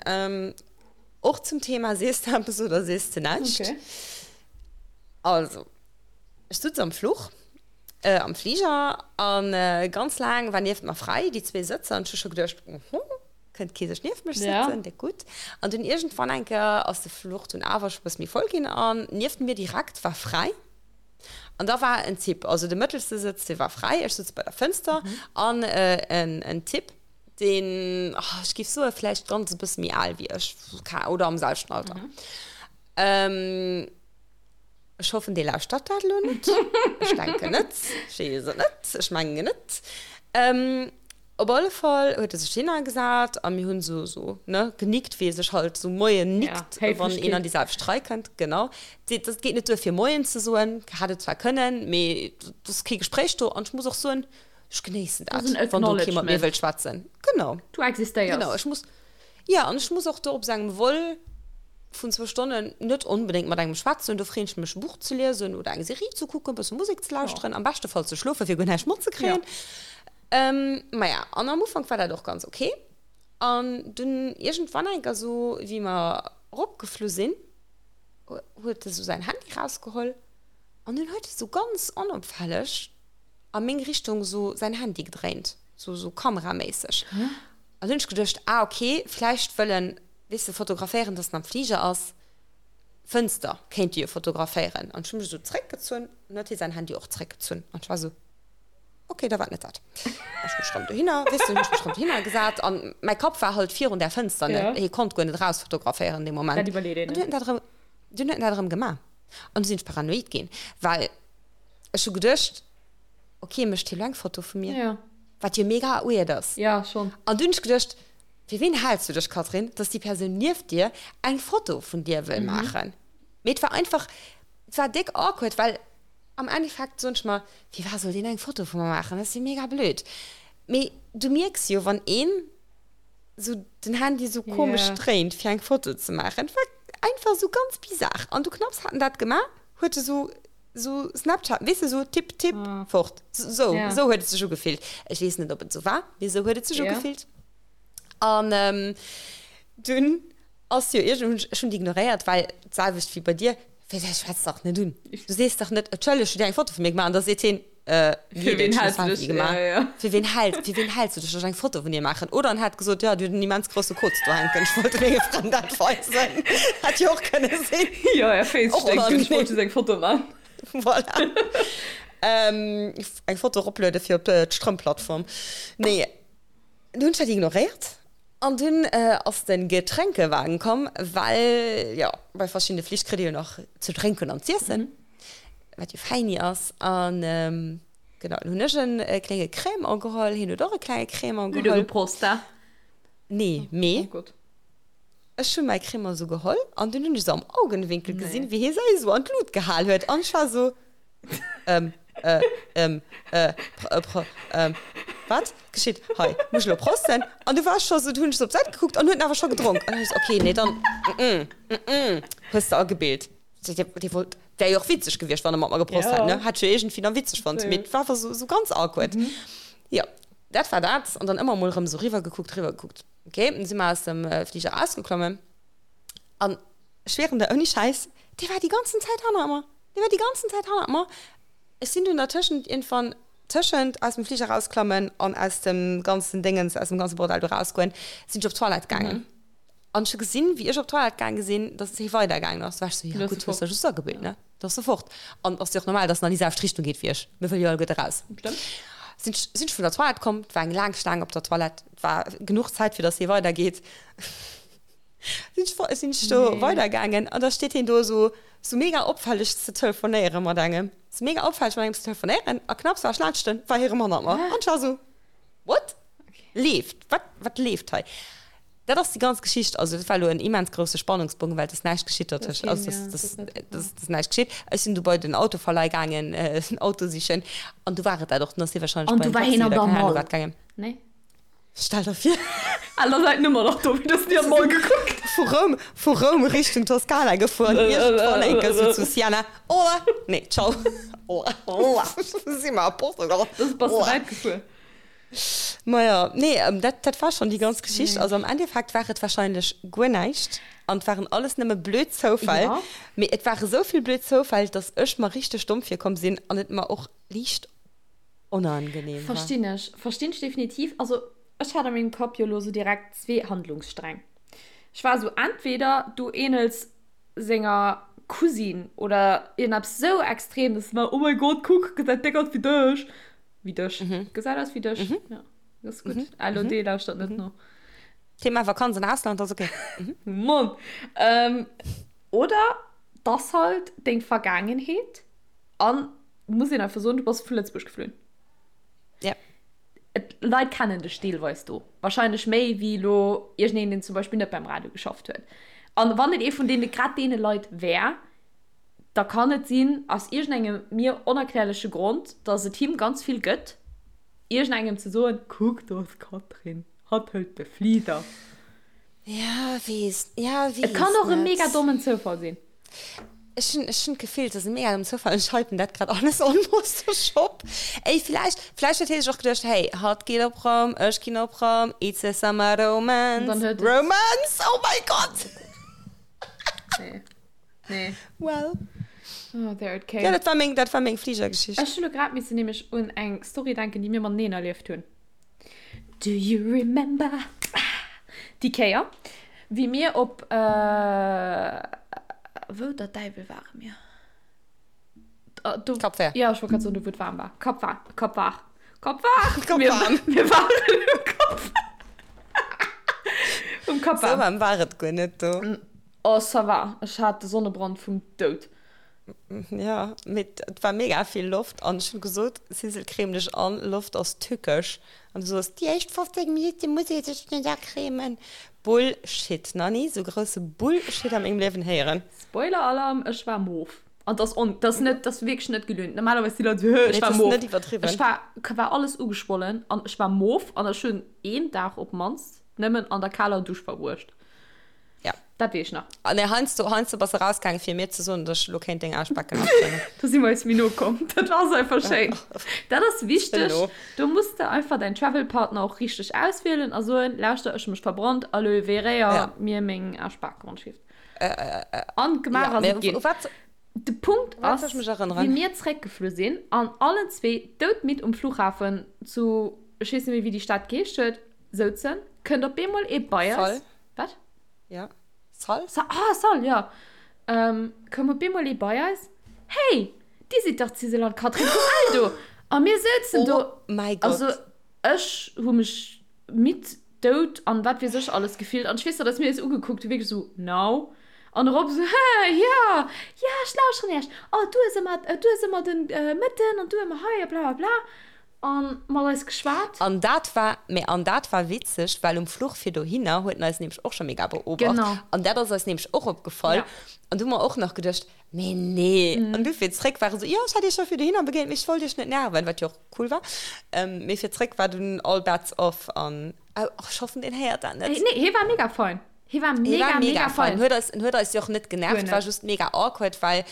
Speaker 2: och zum Thema sees de eppes oder sees de näischt.
Speaker 1: Okay.
Speaker 2: Also, ech sutz am Fluch. Am Fliger an ganz laang war nieft mer fräi, déi zwee Sëtzer, an ech hu scho geduecht, Oho, kënnt kee sech nieft mech sëtzen, déck gutt. An dunn iergendwann eng Kéier ass de Fluch dunn awer scho bësse méi voll ginn an nieft mir direkt war fräi. An da war en Typ, also de mëttelste Sëtz, dee war fräi, ech sutz bei der Fënster an en Typ, deen, ech géif soe vläicht ganz e bësse méi al wéi ech, oder am selwechten Alter. Ech hoffen, dee lauschtert dat elo net. Ech denken net. Ech weess et net. Ech mengen net. Op alle Fall huet e sech hinner gesat a mir hunn esou, esou, ne, genickt, wéi ee sech halt esou Moien nickt,
Speaker 1: Ja,
Speaker 2: wann een an déi selwecht Rei kënnt. Genau. Dat geet net duer, fir Moien ze soen. Hätt et zwar kënnen, mee et ass kee Gespréich do. An ech muss och soen, ech genéissen dat, wann do kee mat mir wëllt schwätzen. Genau.
Speaker 1: Du existéiers.
Speaker 2: Genau. Ech muss. Jo, an ech muss och do op sengem Vol vun zwou Stonnen net onbedéngt mat engem schwätzen. Do freen ech mech e Buch ze liesen oder eng Serie ze kucken, e bësse Musek ze lauschteren, am beschte Fall ze schlofen, fir guer näischt matzekréien. Maja, an am Ufank war dat och ganz ok. An dunn iergendwann enker esou, wéi mer eropgeflu sinn, huet e sou säin Handy rausgeholl an dunn huet e sou ganz onopfälleg a meng Richtung sou säin Handy gedréint, sou sou kameraméisseg. An dunn hunn ech geduecht, ah ok, vläicht wëll en, weess de, fotograféieren, dass en am Fliger ass. Fënster kéint e jo fotograféieren. An ech hu mech esou zréckgezunn an huet hie säin Handy och zréckgezunn. An ech war esou, ok, da war et net dat. Ech hu mech rëm dohinner, weess de, hunn ech mech rëm dohinner gesat an mäi Kapp war halt virun där Fënster, ne, hie konnt guer net erausfotograféieren dee Moment.
Speaker 1: Dat iwwerleet een
Speaker 2: An dunn huet
Speaker 1: net.
Speaker 2: en dat erëm, dunn huet en dat erëm gemaach. An du sinn ech paranoid ginn, well ech hu geduecht, ok, mécht hie lo eng Foto vu mir?
Speaker 1: Ja.
Speaker 2: Wat jo mega weird ass.
Speaker 1: Ja, schon.
Speaker 2: An dunn hunn ech geduecht, Fir ween haals du dech, Catherine, dass déi Persoun nieft dir eng Foto vun dir wëll maachen? Mee et war einfach, et war déck awkward, well am Endeffekt soen ech mer, Firwat soll deen eng Foto vu mer maachen? Dat ass jo mega blöd. Mee du mierks jo, wann een sou den Handy sou komesch dréint, fir eng Foto ze maachen. Et war einfach sou ganz bizar. An du knapps hat en dat gemaach, huet e sou Sou Snapchat, weess de, sou tipp, tipp, fort. Sou, sou huet et sech ugefillt. Ech weess net, ob et sou war, mee sou huet et sech ugefillt. An dunn ass jo iergend, ech hunn déi ignoréiert, well d'selwecht wéi bei dir, wéi dat schwätz dach net un. Du sees dach net, Entschëlleg, hutt Dir eng Foto vu mir gemaach? An da seet hien, Fir ween häls du dech? Ja, ja. Fir ween häls, fir ween häls du dech, dass ech eng Foto vun dir maachen? Oder en hätt gesot, jo, du huet en immens grousse Koz do hänken, ech wollt menge Frënn dat weisen. Hätt jo och kënne sinn.
Speaker 1: Jo, är Féiss sténken, ech wollt just eng Foto maachen.
Speaker 2: Voilà. Eng Foto eropluede fir op d'Strëmplattform. Nee, du hunn ech dat ignoréiert an dunn ass de Getränkewagen komm, well jo, bei verschiddene Flich kritt ee jo nach ze drénken an z'iessen. Wat jo feini ass. An genau, dann hunn ech en klénge Crémant geholl, hien huet och e klenge Crémant
Speaker 1: geholl. Udo, Prost, da.
Speaker 2: Nee, mee. Oh Gott. Ech hunn mäi Cremant esou geholl an dunn hunn ech esou am Augenwinkel gesinn, wéi hie säi esou an d'Lut gehal huet an ech war esou, ähm, äh, ähm, äh, pr, pr, ähm, wat geschitt hei? Muss ech elo prosten? An du war ech scho esou, du hunn ech esou op d'Säit gekuckt an huet en awer scho gedronk an ech esou, okay, nee, dann, mm, mm, hues de agebilt. Dee wollt, wär jo och witzeg gewiescht, wann e mat mer geprost hätt, ne? Hätt ech jo iergendwéi dann witzeg fonnt, mee et war einfach esou, esou ganz awkward. Jo, dat war dat an dann ëmmer emol erëm esou riwwer gekuckt, riwwer gekuckt. Ok, dann si mer aus dem Fliger erausgeklommen an ech schwieren der, ouni Schäiss, dee war déi ganzen Zäit hannert mer. Dee war déi ganzen Zäit hannert mer. Ech sinn dunn dertëschent iergendwann, tëschent aus dem Fliger erausklammen an aus dem ganzen Déngens, aus dem ganze Bordell do rausgoen, sinn ech op d'Toilette gaangen. An ech hu gesinn, wéi ech op d'Toilette gaange sinn, dass hie weidergaangen ass. Du war ech sou, jo gutt, hues der just agebilt, ne? Da ass e fort. An ass jo och normal, dass en an déi selwecht Richtung geet wéi ech. Mir wëlle jo alleguerte raus. Sinn ech, sinn ech vun der Toilette komm, et war eng laang Staang op der Toilette, et war genuch Zäit, fir dass hie weidergeet. Sinn ech, sinn ech do weidergaangen an da steet hien do esou, esou mega opfälleg ze telefonéiere mat engem, esou mega opfälleg mat engem ze telefonéieren a knapps war ech laanscht en, war hie rëm hannert mer. An ech war esou, What? Leeft? Wat, wat leeft hei? Dat ass déi ganz Geschicht. Also dat war elo en immens grousse Spannungsbogen, well et ass näischt geschitt dertëscht. Also dat ass näischt geschitt. Ech sinn du bei den Autoverleih gaangen, en Auto sichen an du war et dat och. Dann ass hie wahrscheinlech bei en Taxi oder keng Ahnung wat gaangen.
Speaker 1: Nee.
Speaker 2: Stell der vir.
Speaker 1: Al, da säit Nummer nach do, wéi du hast ni an d'Mall gekuckt.
Speaker 2: Vu Roum, vu Roum Richtung Toskana gefuer, iergendwann eng Kéier sou zu Siena. Hola! Nee, ciao. Hola! Si mer a Portugal.
Speaker 1: Das bass de wäit gefuer.
Speaker 2: Maja, nee, dat, dat war schonn déi ganz Geschicht. Also am Endeffekt war et wahrscheinlech guer näischt an et waren alles nëmme blöd Zoufäll.
Speaker 1: Ja.
Speaker 2: Mee et ware sou vill blöd Zoufäll, dass ech mer richteg domm virkomm sinn an et mer och liicht onangenehm
Speaker 1: war. Verstinn ech. Verstinn ech definitiv. Also ech hat a mengem Kapp jo elo sou direkt zwee Handlungssträng. Ech war sou, entweder du ähnels senger Cousine oder iergendeppes sou extrem, dass se war, oh mein Gott, kuck, gesäit déck aus wéi dech. Wéi dech. Mhm. Gesäit aus wéi dech. Mhm. Ja, dat ass gutt. Mhm. LOD mhm. lauschtert net no.
Speaker 2: Thema Vakanz an Ausland ass okay.
Speaker 1: Mhm. Mann. Ähm, oder das halt deng Vergangenheet an muss een einfach soen, du bass vu Lëtzebuerg geflunn.
Speaker 2: Ja.
Speaker 1: Et, Leit kennen dech deelweis do. Wahrscheinlech méi wéi lo iergendeen, deen zum Beispill net beim Radio geschafft huet. An wann et ee vun deene grad deene Leit wär, da kann et sinn, aus iergendengem mir onerklärleche Grond, dass et him ganz vill gëtt, iergendengem ze soen, Kuck, do ass d'Catherine, hatt hëlt de Fliger.
Speaker 2: Ja, weess, ja,
Speaker 1: weess Et kann och e mega dommen Zoufall sinn.
Speaker 2: Ech hunn, ech hunn d'Gefill, et ass e mega dommen Zoufall. Ech hypen dat grad alles almost op. Ey, villäicht, villäicht huet hie sech och geduecht, Hey, hatt geet op Roum, ech ginn op Roum, it's a summer romance.
Speaker 1: Dann huet et.
Speaker 2: Romance, oh my God!
Speaker 1: Nee. Nee.
Speaker 2: Well.
Speaker 1: Oh, there it came.
Speaker 2: Ja, dat war meng, dat war meng Fligergeschicht.
Speaker 1: Ech hunn elo grad missen nämlech un eng Story denken, déi mir mateneen erlieft hunn. Do you remember? Déi Kéier, wéi mir op, wou der Däiwel ware mir? Do,
Speaker 2: Cap Vert.
Speaker 1: Ja, ech wollt grad soen, do wou et waarm war. Cap Vert, Cap Vert, Cap Vert!
Speaker 2: Cap
Speaker 1: Mir,
Speaker 2: Warm.
Speaker 1: mir waren um Cap Vert. Um Cap
Speaker 2: Sou
Speaker 1: Warm.
Speaker 2: waarm war et guer net do.
Speaker 1: Oh ça va, ech hat de Sonnebrand vum Doud.
Speaker 2: Ja, mee et war mega vill Loft an ech hunn gesot, Sissel creme dech an, Loft ass tückesch. An du soos, déi éischt 15 Minutte muss ee sech net acremen. Bullshit, nach ni sou grousse Bullshit a mengem Liewen héieren.
Speaker 1: Spoiler-Alarm, ech war mof. An dass on, dass net, dass wierklech net gelünt. Normalerweis si Leit sou, hö, ech war mof.
Speaker 2: Nee, dat ass net iwwerdriwwen.
Speaker 1: Ech war, war alles ugeschwollen an ech war mof an ech hunn een Dag op d'mannst nëmmen an der kaler Dusch verbruecht.
Speaker 2: Ja.
Speaker 1: Dat weess ech nach.
Speaker 2: Ah nee, heiansdo, heiansdo bass de rausgaangen, fir mir ze soen, dass ech elo kéint deng Aarschbacken afréngen.
Speaker 1: Do si mer eis méi no komm. Dat ass einfach schéin. Dat ass wichteg.
Speaker 2: Elo.
Speaker 1: Do muss de einfach däin Travel-Partner och richteg auswielen a soen, lauschter, ech hu mech verbrannt, aloe vera,
Speaker 2: Ja.
Speaker 1: mir meng Aarschbake ronschwieft.
Speaker 2: Äh, äh,
Speaker 1: An gemaach
Speaker 2: ja,
Speaker 1: ass
Speaker 2: mee
Speaker 1: et ginn.
Speaker 2: u wat,
Speaker 1: De Punkt
Speaker 2: u wat
Speaker 1: ass,
Speaker 2: soll ech mech
Speaker 1: wéi
Speaker 2: erënneren?
Speaker 1: mir zréckgeflu sinn an allen zwee doudmidd um Flughafen zu, ech weess net méi, wéi déi Stad geheescht huet, souzen, kënnt op eemol ee bei eis.
Speaker 2: Sal.
Speaker 1: Wat?
Speaker 2: Ja. Sal?
Speaker 1: Sa ah, Sal, ja. Ähm, koum op eemol ee bei eis. Hey, dir sidd dach d'Sisel an d'Catherine vum Eldo! A mir souzen do.
Speaker 2: Oh mäi Gott.
Speaker 1: Also, ech hu mech midd, dout an wat weess ech alles gefillt. An ech weess nach, dass mir eis ugekuckt hu wierklech esou, Now? An erop esou, Hä, ja, ja, ech lauschteren iech. Oh, du hues ëmmer, du hues ëmmer den Mëtten an du ëmmer hei a bla bla bla. An mat eis geschwat.
Speaker 2: An dat war, mä an dat war witzeg, well um Fluch fir dohinner huet en eis nämlech och scho mega beobacht.
Speaker 1: Genau.
Speaker 2: An dat ass eis nämlech och opgefall.
Speaker 1: Ja.
Speaker 2: An du hu mer och nach geduecht, Mee nee. An du fir zréck war e sou, Jo, ech hat iech scho fir dohinner begéint, mee ech wollt iech net nerven, wat jo och cool war. Mee fir zréck war dunn all bets off an, oh, ech hoffen, deen héiert dat net.
Speaker 1: Nee, hie war mega fein. Hie war
Speaker 2: Hie
Speaker 1: mega,
Speaker 2: war
Speaker 1: mega
Speaker 2: mega fein.
Speaker 1: fein.
Speaker 2: Huet eis, en huet eis jo och net
Speaker 1: Guer
Speaker 2: genervt, war
Speaker 1: net.
Speaker 2: just mega awkward, well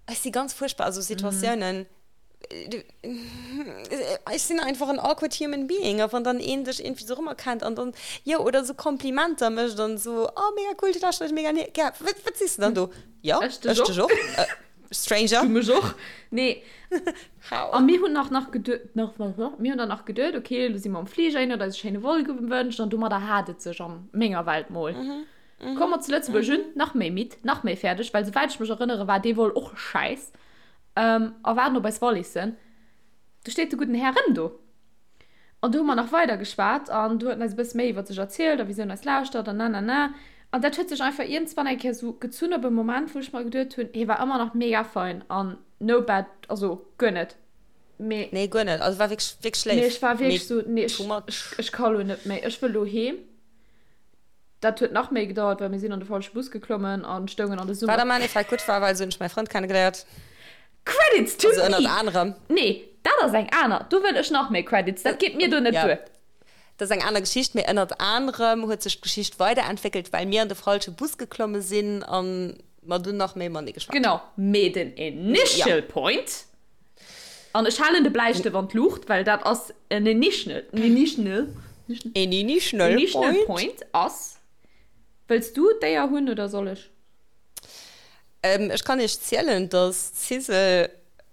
Speaker 2: ech si ganz fuerchtbar a sou Situatiounen. Ech sinn einfach en awkward human being a wann dann een dech iergendwéi sou erëmerkennt an dann, jo, oder sou Komplimenter mécht an sou, oh mega cool, du lauschters mega gär, wat, wat sees de dann do? Jo,
Speaker 1: Ech dech
Speaker 2: ech
Speaker 1: och.
Speaker 2: dech och, Stranger.
Speaker 1: Du mech och. Nee.
Speaker 2: How?
Speaker 1: A mir hunn nach nach geduet, nach, mir hunn dann nach geduet, okay, elo si mer am Fliger, een huet eis e schéine Vol gewënscht an domadder hat et sech a menger Welt mol. Komme mer zu Lëtzebuerg un, nach méi midd, nach méi fäerdeg, well souwäit ech mech erënnere war dee Vol och schäiss. A waarden op eis Wallissen. Du steet de gudden Här rëm do. An du hu mer nach weider geschwat an du huet en eis e bësse méi iwwer sech erzielt a wisou en eis lauschtert an nanana. An dat huet sech einfach iergendswann eng Kéier sou gezunn op e Moment, wou ech mer geduet hunn, hie war ëmmer nach mega fein an no bad, also guer net. Mee.
Speaker 2: Nee, guer net. Also war wierklech, wierklech
Speaker 1: Mee
Speaker 2: léif.
Speaker 1: ech war
Speaker 2: Mee
Speaker 1: wierklech sou, nee, ech,
Speaker 2: too much.
Speaker 1: ech, ech ka lo net méi, ech wëll lo heem. Dat huet nach méi gedauert, well mir sinn an de falsche Bus geklommen an stoungen an de Summer.
Speaker 2: Wat am Endeffekt gutt war, well esou hunn ech mäi Frënd kennegeléiert.
Speaker 1: Credits to
Speaker 2: Also
Speaker 1: me!
Speaker 2: ënnert anerem.
Speaker 1: Nee, dat ass eng aner. Do wëll ech nach méi Credits. Dat geet mir do net
Speaker 2: Ja,
Speaker 1: duer.
Speaker 2: dat ass eng aner Geschicht, mee ënnert anerem huet sech d'Geschicht weiderentwéckelt, well mir an de falsche Bus geklomme sinn a mer dunn nach méi matenee geschwat hunn.
Speaker 1: Genau, mee den initial point, An ech halen de Bläistëft an d'Luucht, well dat ass en initial, initial,
Speaker 2: En initial
Speaker 1: initial
Speaker 2: point.
Speaker 1: point ass. Wëlls du d'Éier hunn oder soll ech?
Speaker 2: Ähm, ech kann iech zielen, dass d'Sisel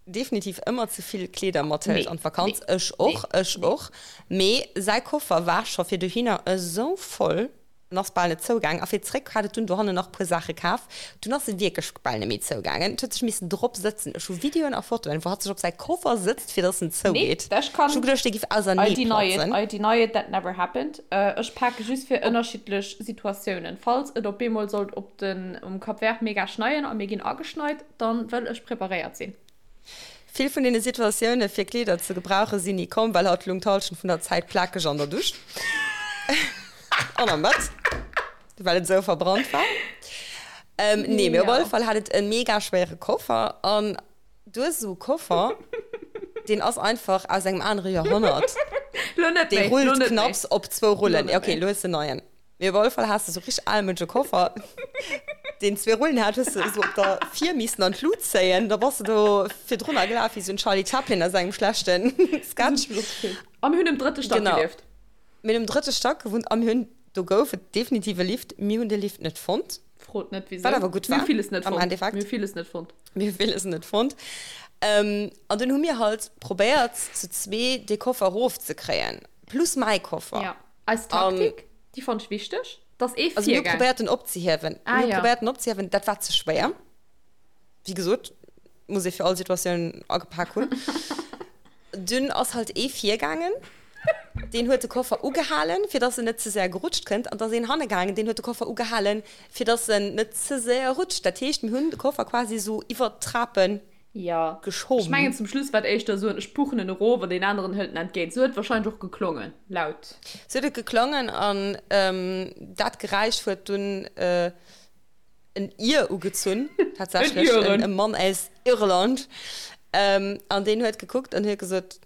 Speaker 2: definitiv ëmmer ze vill Kleeder mathëlt
Speaker 1: Nee,
Speaker 2: an d'Vakanz.
Speaker 1: nee,
Speaker 2: Ech
Speaker 1: nee,
Speaker 2: och, ech
Speaker 1: nee.
Speaker 2: och. Mee säi Koffer war scho fir dohinner esou voll. En ass bal net zougaang a fir zréck hat et dunn dohannen nach puer Saache kaf. Dunn ass e wierklech bal net méi zougaangen. Et huet sech missen drop sëtzen. Ech hu Videoen a Fotoen, wou hatt sech op säi Koffer sëtzt, fir dass en
Speaker 1: Nee,
Speaker 2: zougeet.
Speaker 1: ech
Speaker 2: Ech hu
Speaker 1: kann.
Speaker 2: geduecht, dee giff
Speaker 1: I
Speaker 2: ausernee
Speaker 1: deny it,
Speaker 2: platzen.
Speaker 1: I deny it, that never happened. Ech pake just fir ënnerschiddlech Situatiounen. Falls et op eemol sollt op den, um Cap Vert mega schneien a mir ginn ageschneit, dann wëll ech preparéiert sinn.
Speaker 2: Vill vun deene Situatioune fir Kleeder ze gebrauche sinn ni komm, well hatt lung d'Halschent vun der Zäit plakeg an der Dusch an am Bett, well et esou verbrannt war. Nee, mee op alle Fall hat et e mega schwéiere Koffer an du hues esou e Koffer, deen ass einfach aus engem anere Joerhonnert. Dee rullt knapps op zwou Rullen. Ok, elo hues de en neien. Mee op alle Fall has de sou richteg almënsche Koffer, deen zwee Rullen hat, hues de sou op der vir missen an d'Lut zéien, da bass de do virdrunner gelaf wéi sou en Charlie Chaplin a sengem schlechten Sketch.
Speaker 1: A mir hunn um drëtte Stack
Speaker 2: Genau.
Speaker 1: gelieft.
Speaker 2: Mir hunn um drëtte Stack gewunnt a mir hunn, do gouf et definitiv e Lift, mir hunn de Lift net fonnt.
Speaker 1: Frot net
Speaker 2: Wat
Speaker 1: wisou.
Speaker 2: awer gutt
Speaker 1: Mir hu
Speaker 2: war,
Speaker 1: villes net
Speaker 2: am
Speaker 1: fonnt.
Speaker 2: Endeffekt.
Speaker 1: Mir hu villes net fonnt.
Speaker 2: Mir hu villes net fonnt. An dunn hu mir halt probéiert, zu zwee dee Koffer erofzekréien, plus mäi Koffer.
Speaker 1: Ja. Eis Taktik, déi fonnt ech wichteg, dass ee
Speaker 2: Also mir hu
Speaker 1: virgaang.
Speaker 2: probéiert en opzehiewen.
Speaker 1: Ah,
Speaker 2: Mir hu
Speaker 1: ja.
Speaker 2: probéiert en opzehiewen, dat war ze schwéier. Wéi gesot, muss ee fir all Situatioun agepak hunn. Dunn ass halt ee virgaangen, deen huet de Koffer ugehalen, fir dass en net ze séier gerutscht kënnt. An da ass een hanne gaangen, deen huet de Koffer ugehalen, fir dass en net ze séier rutscht. Dat heescht, mir hunn de Koffer quasi esou iwwert d'Trapen
Speaker 1: Jo, ech
Speaker 2: Geschoben.
Speaker 1: mengen zum Schluss war et éischter esou en ech puchen en erof an deen aneren hëlt en entgéint. Sou huet et wahrscheinlech och geklongen, laut.
Speaker 2: Sou huet et geklongen an dat Geräisch huet dunn en Ir ugezunn, tatsächlech
Speaker 1: En Iren.
Speaker 2: e Mann aus Irland. An deen huet gekuckt an huet gesot,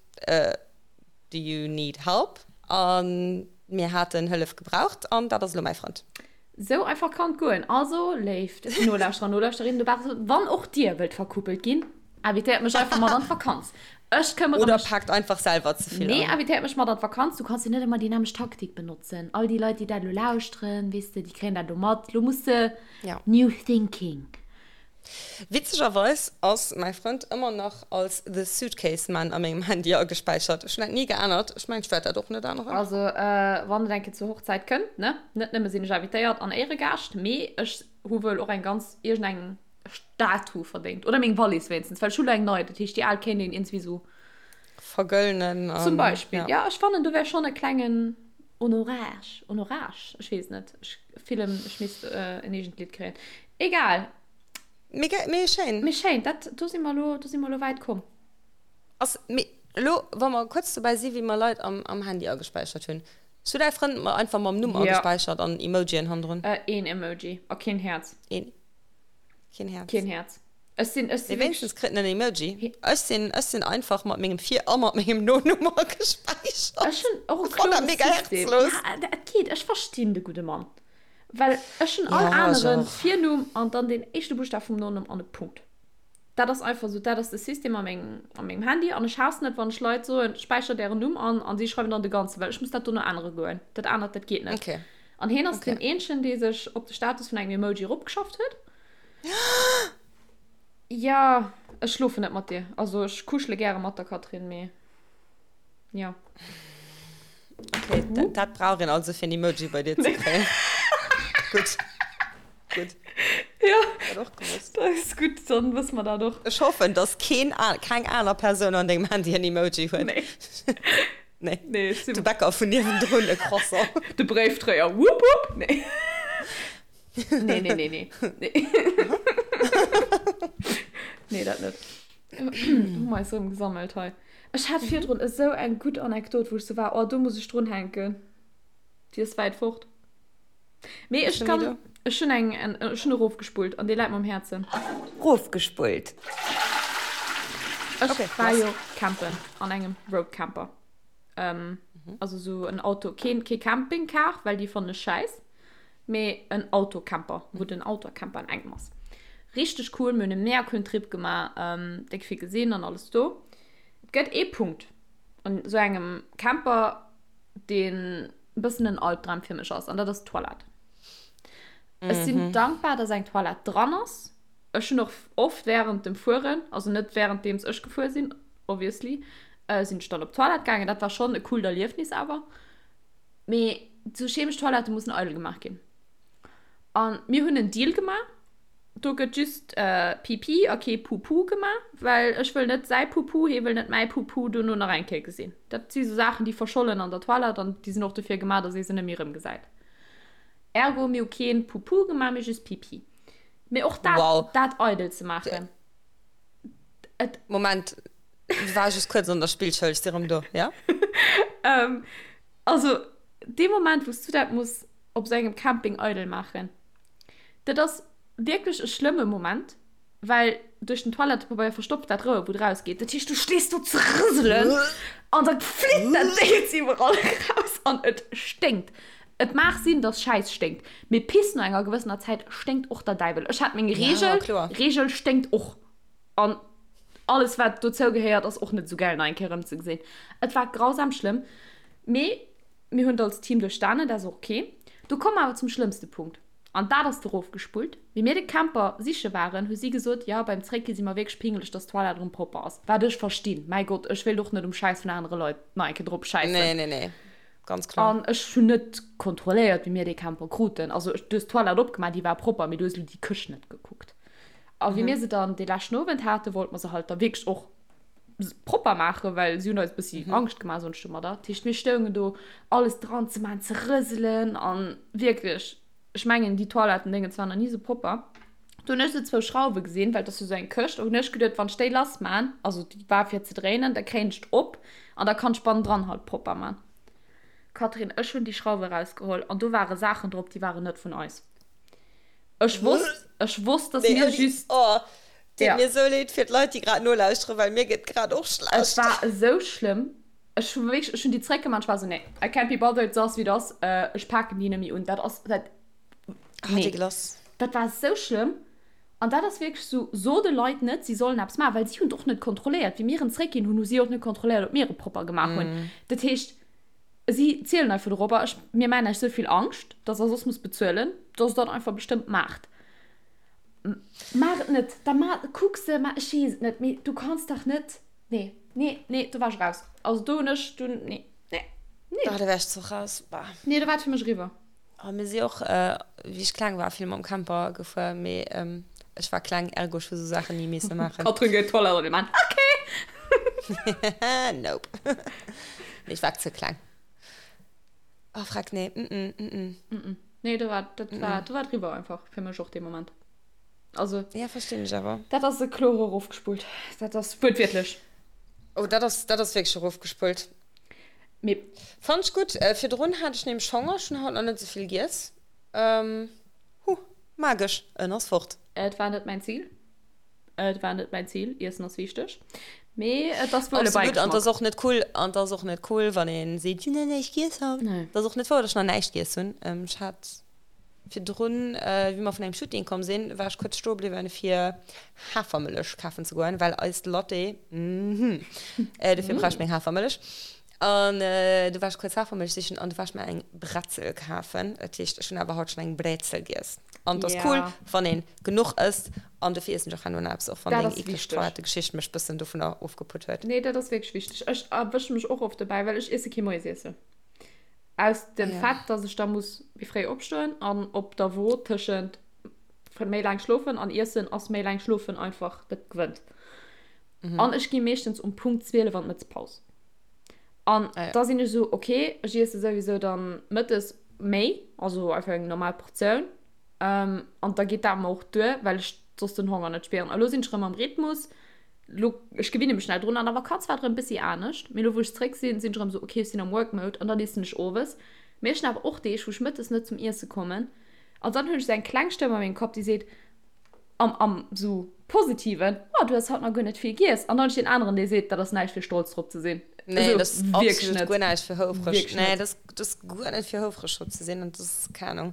Speaker 2: Do you need help? A mir haten Hëllef gebraucht an dat ass elo mäi Frënd.
Speaker 1: Sou einfach kann et goen. Also, léift Nolauschterer an Nolauschterinnen dobaussen, wann och dir wëllt verkuppelt ginn, invitéiert mech einfach mat an d'Vakanz. Ech këmmere
Speaker 2: Oder
Speaker 1: mech.
Speaker 2: paakt einfach selwer ze vill
Speaker 1: Nee,
Speaker 2: an.
Speaker 1: invitéiert mech mat an d'Vakanz. Du kanns jo net ëmmer déi nämmlecht Taktik benotzen. All déi Leit, déi dat elo lauschteren, weess de, déi kréien dat elo mat. Lo muss de
Speaker 2: Ja.
Speaker 1: new thinking.
Speaker 2: Witzegerweis ass mäi Frënd ëmmer nach als The Suitcase Man a mengem Handy agespäichert. Ech hunn dat ni geännert. Ech mengen, ech wäert dat och net änneren.
Speaker 1: Also, wann et eng Kéier zur Hochzäit kënnt, ne, net nëmme sinn ech invitéiert an Éieregaascht, mee ech hu wuel och eng ganz, iergendeng Statue verdéngt. Oder meng Wallis wéinstens, well ech hu lo eng nei. Dat heescht, déi al kéint een iergendwéi sou.
Speaker 2: Vergëllnen an.
Speaker 1: Zum Beispill, ja. Ech fannen, do wär schonn e klengen Honorage, Honorage, ech weess net, ech fillen, ech misst en eegent Lidd kréien. Egal.
Speaker 2: Mee, mee schéin.
Speaker 1: Mee schéin, dat, do si mer elo, do si mer elo wäit komm.
Speaker 2: Ass, mee. Elo, wa mer kuerz dobäi si wéi mer Leit am am Handy agespäichert hunn. Hues du däi Frënd mer einfach mam Numm agespäichert an Emojien hannendrun?
Speaker 1: Een Emoji a keen Häerz.
Speaker 2: Een. Keen Häerz.
Speaker 1: Keen Häerz. Ech sinn, ech
Speaker 2: sinn. Mee wéinstens kritt en en Emoji. Ech sinn, ech sinn einfach mat mengem Vir a mat mengem Nonumm agespäichert.
Speaker 1: Ech hunn och e kloere System. Ja, dat geet. Ech verstinn de gudde Mann. Well ech hunn all aneren Virnumm an dann den éischte Buschtaf vum Nonumm an e Punkt. Dat ass einfach esou, dat ass de System a mengem, a mengem Handy. An ech haassen et, wann ech Leit soen, späichert ären Numm an, an si schreiwen dann de ganzen, well ech muss dat dono ännere goen. Dat anert, dat geet net.
Speaker 2: Okay.
Speaker 1: An hien ass deen eenzegen, dee sech op de Status vun engem Emoji eropgeschafft huet. Ja, ech schlofen net mat dir. Also ech kuschele gäre mat der Catherine, mee ja.
Speaker 2: Okay, dat, dat brauch een also fir en Emoji bei dir ze kréien. Gutt. Gutt.
Speaker 1: Ja.
Speaker 2: Dat och gewosst.
Speaker 1: Dat ass gutt, dann wësse mer dat och.
Speaker 2: Ech hoffen, dass keen, keng aner Persoun an dengem Handy en Emoji huet.
Speaker 1: Nee.
Speaker 2: Nee.
Speaker 1: Nee, ech sinn.
Speaker 2: De Bäcker vun niewendrun e Croissant.
Speaker 1: De Bréifdréier, wupp wupp. Nee. Nee, nee, nee, nee. Nee, nee dat net. Hu mer eis erëm gesammelt hei. Ech hat virdrun esou eng gutt Anekdot, wou ech sou war, oh, do muss ech drunhänken. Déi ass wäit fort. Mee ech kann, ech hunn eng, ech hunn erofgespullt an déi läit mer um Häerzen.
Speaker 2: Rofgespullt.
Speaker 1: Ech war jo campen an engem Roadcamper. Also sou en Auto, keen, kee Campingcar, well déi fannen ech schäiss. Mee en Autocamper, wou den Autocamper an engem ass. Richteg cool, mir hunn e mega coolen Trip gemaach, déck vill gesinn an alles do. Et gëtt ee Punkt an esou engem Camper, deen e bëssen en Albdram fir mech ass, an dat ass d'Toilette. Ech sinn dankbar, dass eng Toilette dran ass. Ech hunn och oft während dem Fueren, also net währenddeems ech gefuer sinn, obviously, sinn ech dann op d'Toilette gaangen. Dat war schonn e coolt Erliefnis awer. Mee sou chemesch Toilette mussen eidel gemaach ginn. An mir hunn en Deal gemaach, do gëtt just Pipi a kee Pupu gemaach, well ech wëll net säi Pupu, hee wëll net mäi Pupu dono nach eng Kéier gesinn. Dat si sou Saachen, déi verschollen an der Toilette an déi sinn och dofir gemaach, datt ee se net méi erëmgesäit. Ergo, mir hu kee Pupu gemaach, mee just Pipi. Mee och dat,
Speaker 2: Wow.
Speaker 1: dat eidel ze maachen, et.
Speaker 2: Moment, war just kuerz an der Spillschoul, ech si rëm do, ja?
Speaker 1: Also, dee Moment, wou s du dat muss op sou engem Camping eidel maachen, dat ass wierklech e schlëmme Moment, well duerch den Toilettepabeier verstopft dat Rouer, wou et rausgeet. Dat heescht, du stees do ze rëselen an da flitt dat Déngens iwwerall eraus an et sténkt. Et mag sinn, dass Schäiss sténkt, mee Piss no enger gewëssener Zäit sténkt och der Däiwel. Ech hat meng Reegel, Reegel sténkt och. An alles wat dozou gehéiert ass och net esou gäil nach eng Kéier erëmzegesinn. Et war grausam schlëmm, mee mir hunn et als Team duerchstanen, dat ass och ok. Do komme mer awer zum schlëmmste Punkt, an dat ass erofgespullt. Wéi mir de Camper siche waren, hu si gesot, jo beim Zréckgi si mer wierklech pingeleg, dass d'Toilette erëm propper ass. Wat ech verstinn, mäi Gott, ech wéilt och net um Schäiss vun anere Leit nach eng Kéier drop schäissen.
Speaker 2: Nee, nee, nee, ganz kloer.
Speaker 1: An ech hunn net kontrolléiert, wéi mir dee Camper kruten. Also du hues d'Toilette opgemaach, déi war propper, mee du hues elo déi Këscht net gekuckt. A wéi mir se dann dee leschten Owend haten, wollte mer se halt da wierklech och propper maachen, well si hunn eis e bëssi Angscht gemaach soen ech domadder. Dat heescht, mir stoungen do, alles dran ze maachen, ze rëselen a wierklech, ech mengen, déi Toilettendéngens waren nach ni esou propper. Do hunn ech esou zwou Schrauwe gesinn, well et ass jo esou eng Këscht, a hunn ech geduet, wann ech déi lass maan, also déi war fir ze dréinen, da kréien ech d'op an da kann ech bannendran halt propper maan. Catherine, ech hunn déi Schrauwe erausgeholl an do ware Saachen drop, déi waren net vun eis. Ech wosst, ech wosst, dass
Speaker 2: Nee,
Speaker 1: mir
Speaker 2: ouni,
Speaker 1: just.
Speaker 2: oh, deet
Speaker 1: Ja.
Speaker 2: mir sou leed fir d'Leit, déi grad nolauschteren, well mir gëtt grad och
Speaker 1: Et
Speaker 2: schlecht.
Speaker 1: war esou schlëmm. Ech hu wierklech, ech hunn déi zréckgemaach, ech war esou, nee, I can't be bothered, se ass wéi et ass, ech paken déi net méi un. Dat ass, dat,
Speaker 2: Ah,
Speaker 1: nee.
Speaker 2: dégueulasse.
Speaker 1: Dat war esou schlëmm. An dat ass wierklech esou, so de Leit net, si sollen eppes maachen, well si hunn et och net kontrolléiert. Wéi mir en zréckginn hunn, hu si och net kontrolléiert, ob mir e propper gemaach hunn. Dat heescht, Si zielen einfach dorobber, ech, mir maachen iech souvill Angscht, dass der soss musst bezuelen, dass der dat einfach bestëmmt maacht. Maach et net, da ma, kuck se, ma, ech weess et net, mee du kanns dach net, nee, nee, nee, do war ech raus. Also do hunn ech, do, nee, nee, nee.
Speaker 2: Ah, do wär ech zwar raus, bah.
Speaker 1: Nee, do war et fir mech eriwwer.
Speaker 2: Oh, mir si och, wéi ech kleng war, vill mam Camper gefuer, mee ech war kleng, ergo ech hu sou Saachen ni misse maachen.
Speaker 1: Katrin geet d'Toilette an de Mann, ok!
Speaker 2: Nope. Nee, ech war ze kleng. Oh, freck, nee, mm-mm, mm-mm.
Speaker 1: Mm-mm. Nee, do war, dat war, do war et eriwwer einfach fir mech och dee Moment. Also.
Speaker 2: Ja, verstinn ech awer.
Speaker 1: Dat ass e klore erofgespullt. Dat ass wuertwiertlech.
Speaker 2: Oh, dat ass, dat ass wierklech erofgespullt.
Speaker 1: Mee.
Speaker 2: Fannt ech gutt. Virdrun hat ech nämlech Honger, ech hunn haut nach net esou vill giess. Huh, magesch, en ass fort.
Speaker 1: Et war net mäin Zil. Et war net mäin Zil. Iessen ass wichteg. Mee et ass wuel e
Speaker 2: Absolut, an et ass och net cool, an et ass och net cool, wann ee seet, ech hunn nach näischt giess haut.
Speaker 1: Nee.
Speaker 2: Et ass och net wouer, datt ech nach näischt giess hunn. Ech hat virdrun, wéi mer vun engem Shooting komm sinn, war ech kuerz stoe bliwwen, fir Hafermëllech kafen ze goen, well eist Latte, mhm, dofir brauch ech meng Hafermëllech. An du war ech kuerz Hafermëllech sichen an du war ech mer eng Bretzel kafen. Dat heescht, ech hunn awer haut schonn eng Brezel giess. An et ass cool, wann een genuch ësst. An dofir iessen ech och herno nach eppes, och wann
Speaker 1: Dat
Speaker 2: deng
Speaker 1: ass
Speaker 2: eekleg
Speaker 1: wichteg.
Speaker 2: Toilettegeschicht mech bëssen dovunner ofgeputt huet.
Speaker 1: Nee, dat ass wierklech wichteg. Ech erwësche mech och oft dobäi, well ech iesse kee Moiesiessen. Aus dem
Speaker 2: Ja.
Speaker 1: Fait, dass ech da muss méi fréi opstoen an op der Wo tëschent méi laang schlofen an iessen ass méi laang schlofen einfach, dat gewënnt. An ech gi meeschtens um Punkt 12 an d'Mëttespaus. An
Speaker 2: Ah ja.
Speaker 1: da sinn ech esou, okay, ech iesse souwisou dann mëttes méi, also einfach eng normal Portioun. Ähm, an da geet dat mer och duer, well ech soss den Honger net spieren. A lo sinn ech erëm am Rhythmus. Lo, ech gewinne mech schnell drun. An der Vakanz war et erëm e bëssi anescht. Mee lo wou ech zréck sinn, sinn ech erëm esou, okay, ech sinn am Work Mode an dann iessen ech owes. Mee ech hunn awer och Deeg, wou ech mëttes net zum Iesse kommen. An dann hunn ech esou eng kleng Stëmm a mengem Kapp, déi seet, am, am sou positiven, oh, du hues haut nach guer net vill giess. An dann hunn ech deen aneren, dee seet, dat ass näischt fir stolz drop ze sinn.
Speaker 2: Nee,
Speaker 1: Also,
Speaker 2: dat ass
Speaker 1: wierklech
Speaker 2: absolut
Speaker 1: net.
Speaker 2: guer näischt fir houfreg.
Speaker 1: Wierklech
Speaker 2: Nee,
Speaker 1: net.
Speaker 2: dat ass, dat ass guer net fir houfreg drop ze sinn. An dat ass, keng Ahnung,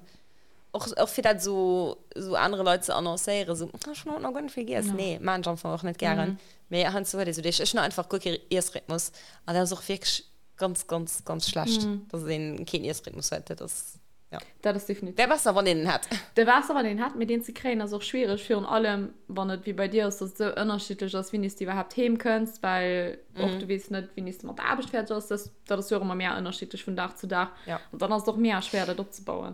Speaker 2: och, och fir dat esou, esou anere Leit ze annoncéieren, esou, oh, ech hunn haut nach guer net vill giess.
Speaker 1: Ja.
Speaker 2: Nee, maachen ech am Fong och net gären. Mee heiansdo huet ee sou Deeg. Ech hunn einfach guer kee Iessrhythmus. An dat ass och wierklech ganz, ganz, ganz schlecht, dass een keen Iessrhythmus huet. Dat ass. Ja.
Speaker 1: Dat ass definitiv.
Speaker 2: Wär besser, wann een en hätt.
Speaker 1: Wär besser, wann een en hätt, mee deen ze kréien ass och schwiereg, virun allem wann et wéi bei dir ass, dass et esou ënnerschiddlech ass, wéini s de iwwerhaapt heem kënns, well och du weess net, wéini s de mat der Aarbecht fäerdeg ass. Dat, dat ass jo och ëmmer mega ënnerschiddlech vun Dag zu Dag.
Speaker 2: Ja.
Speaker 1: An dann ass et och mega schwéier, dat opzebauen.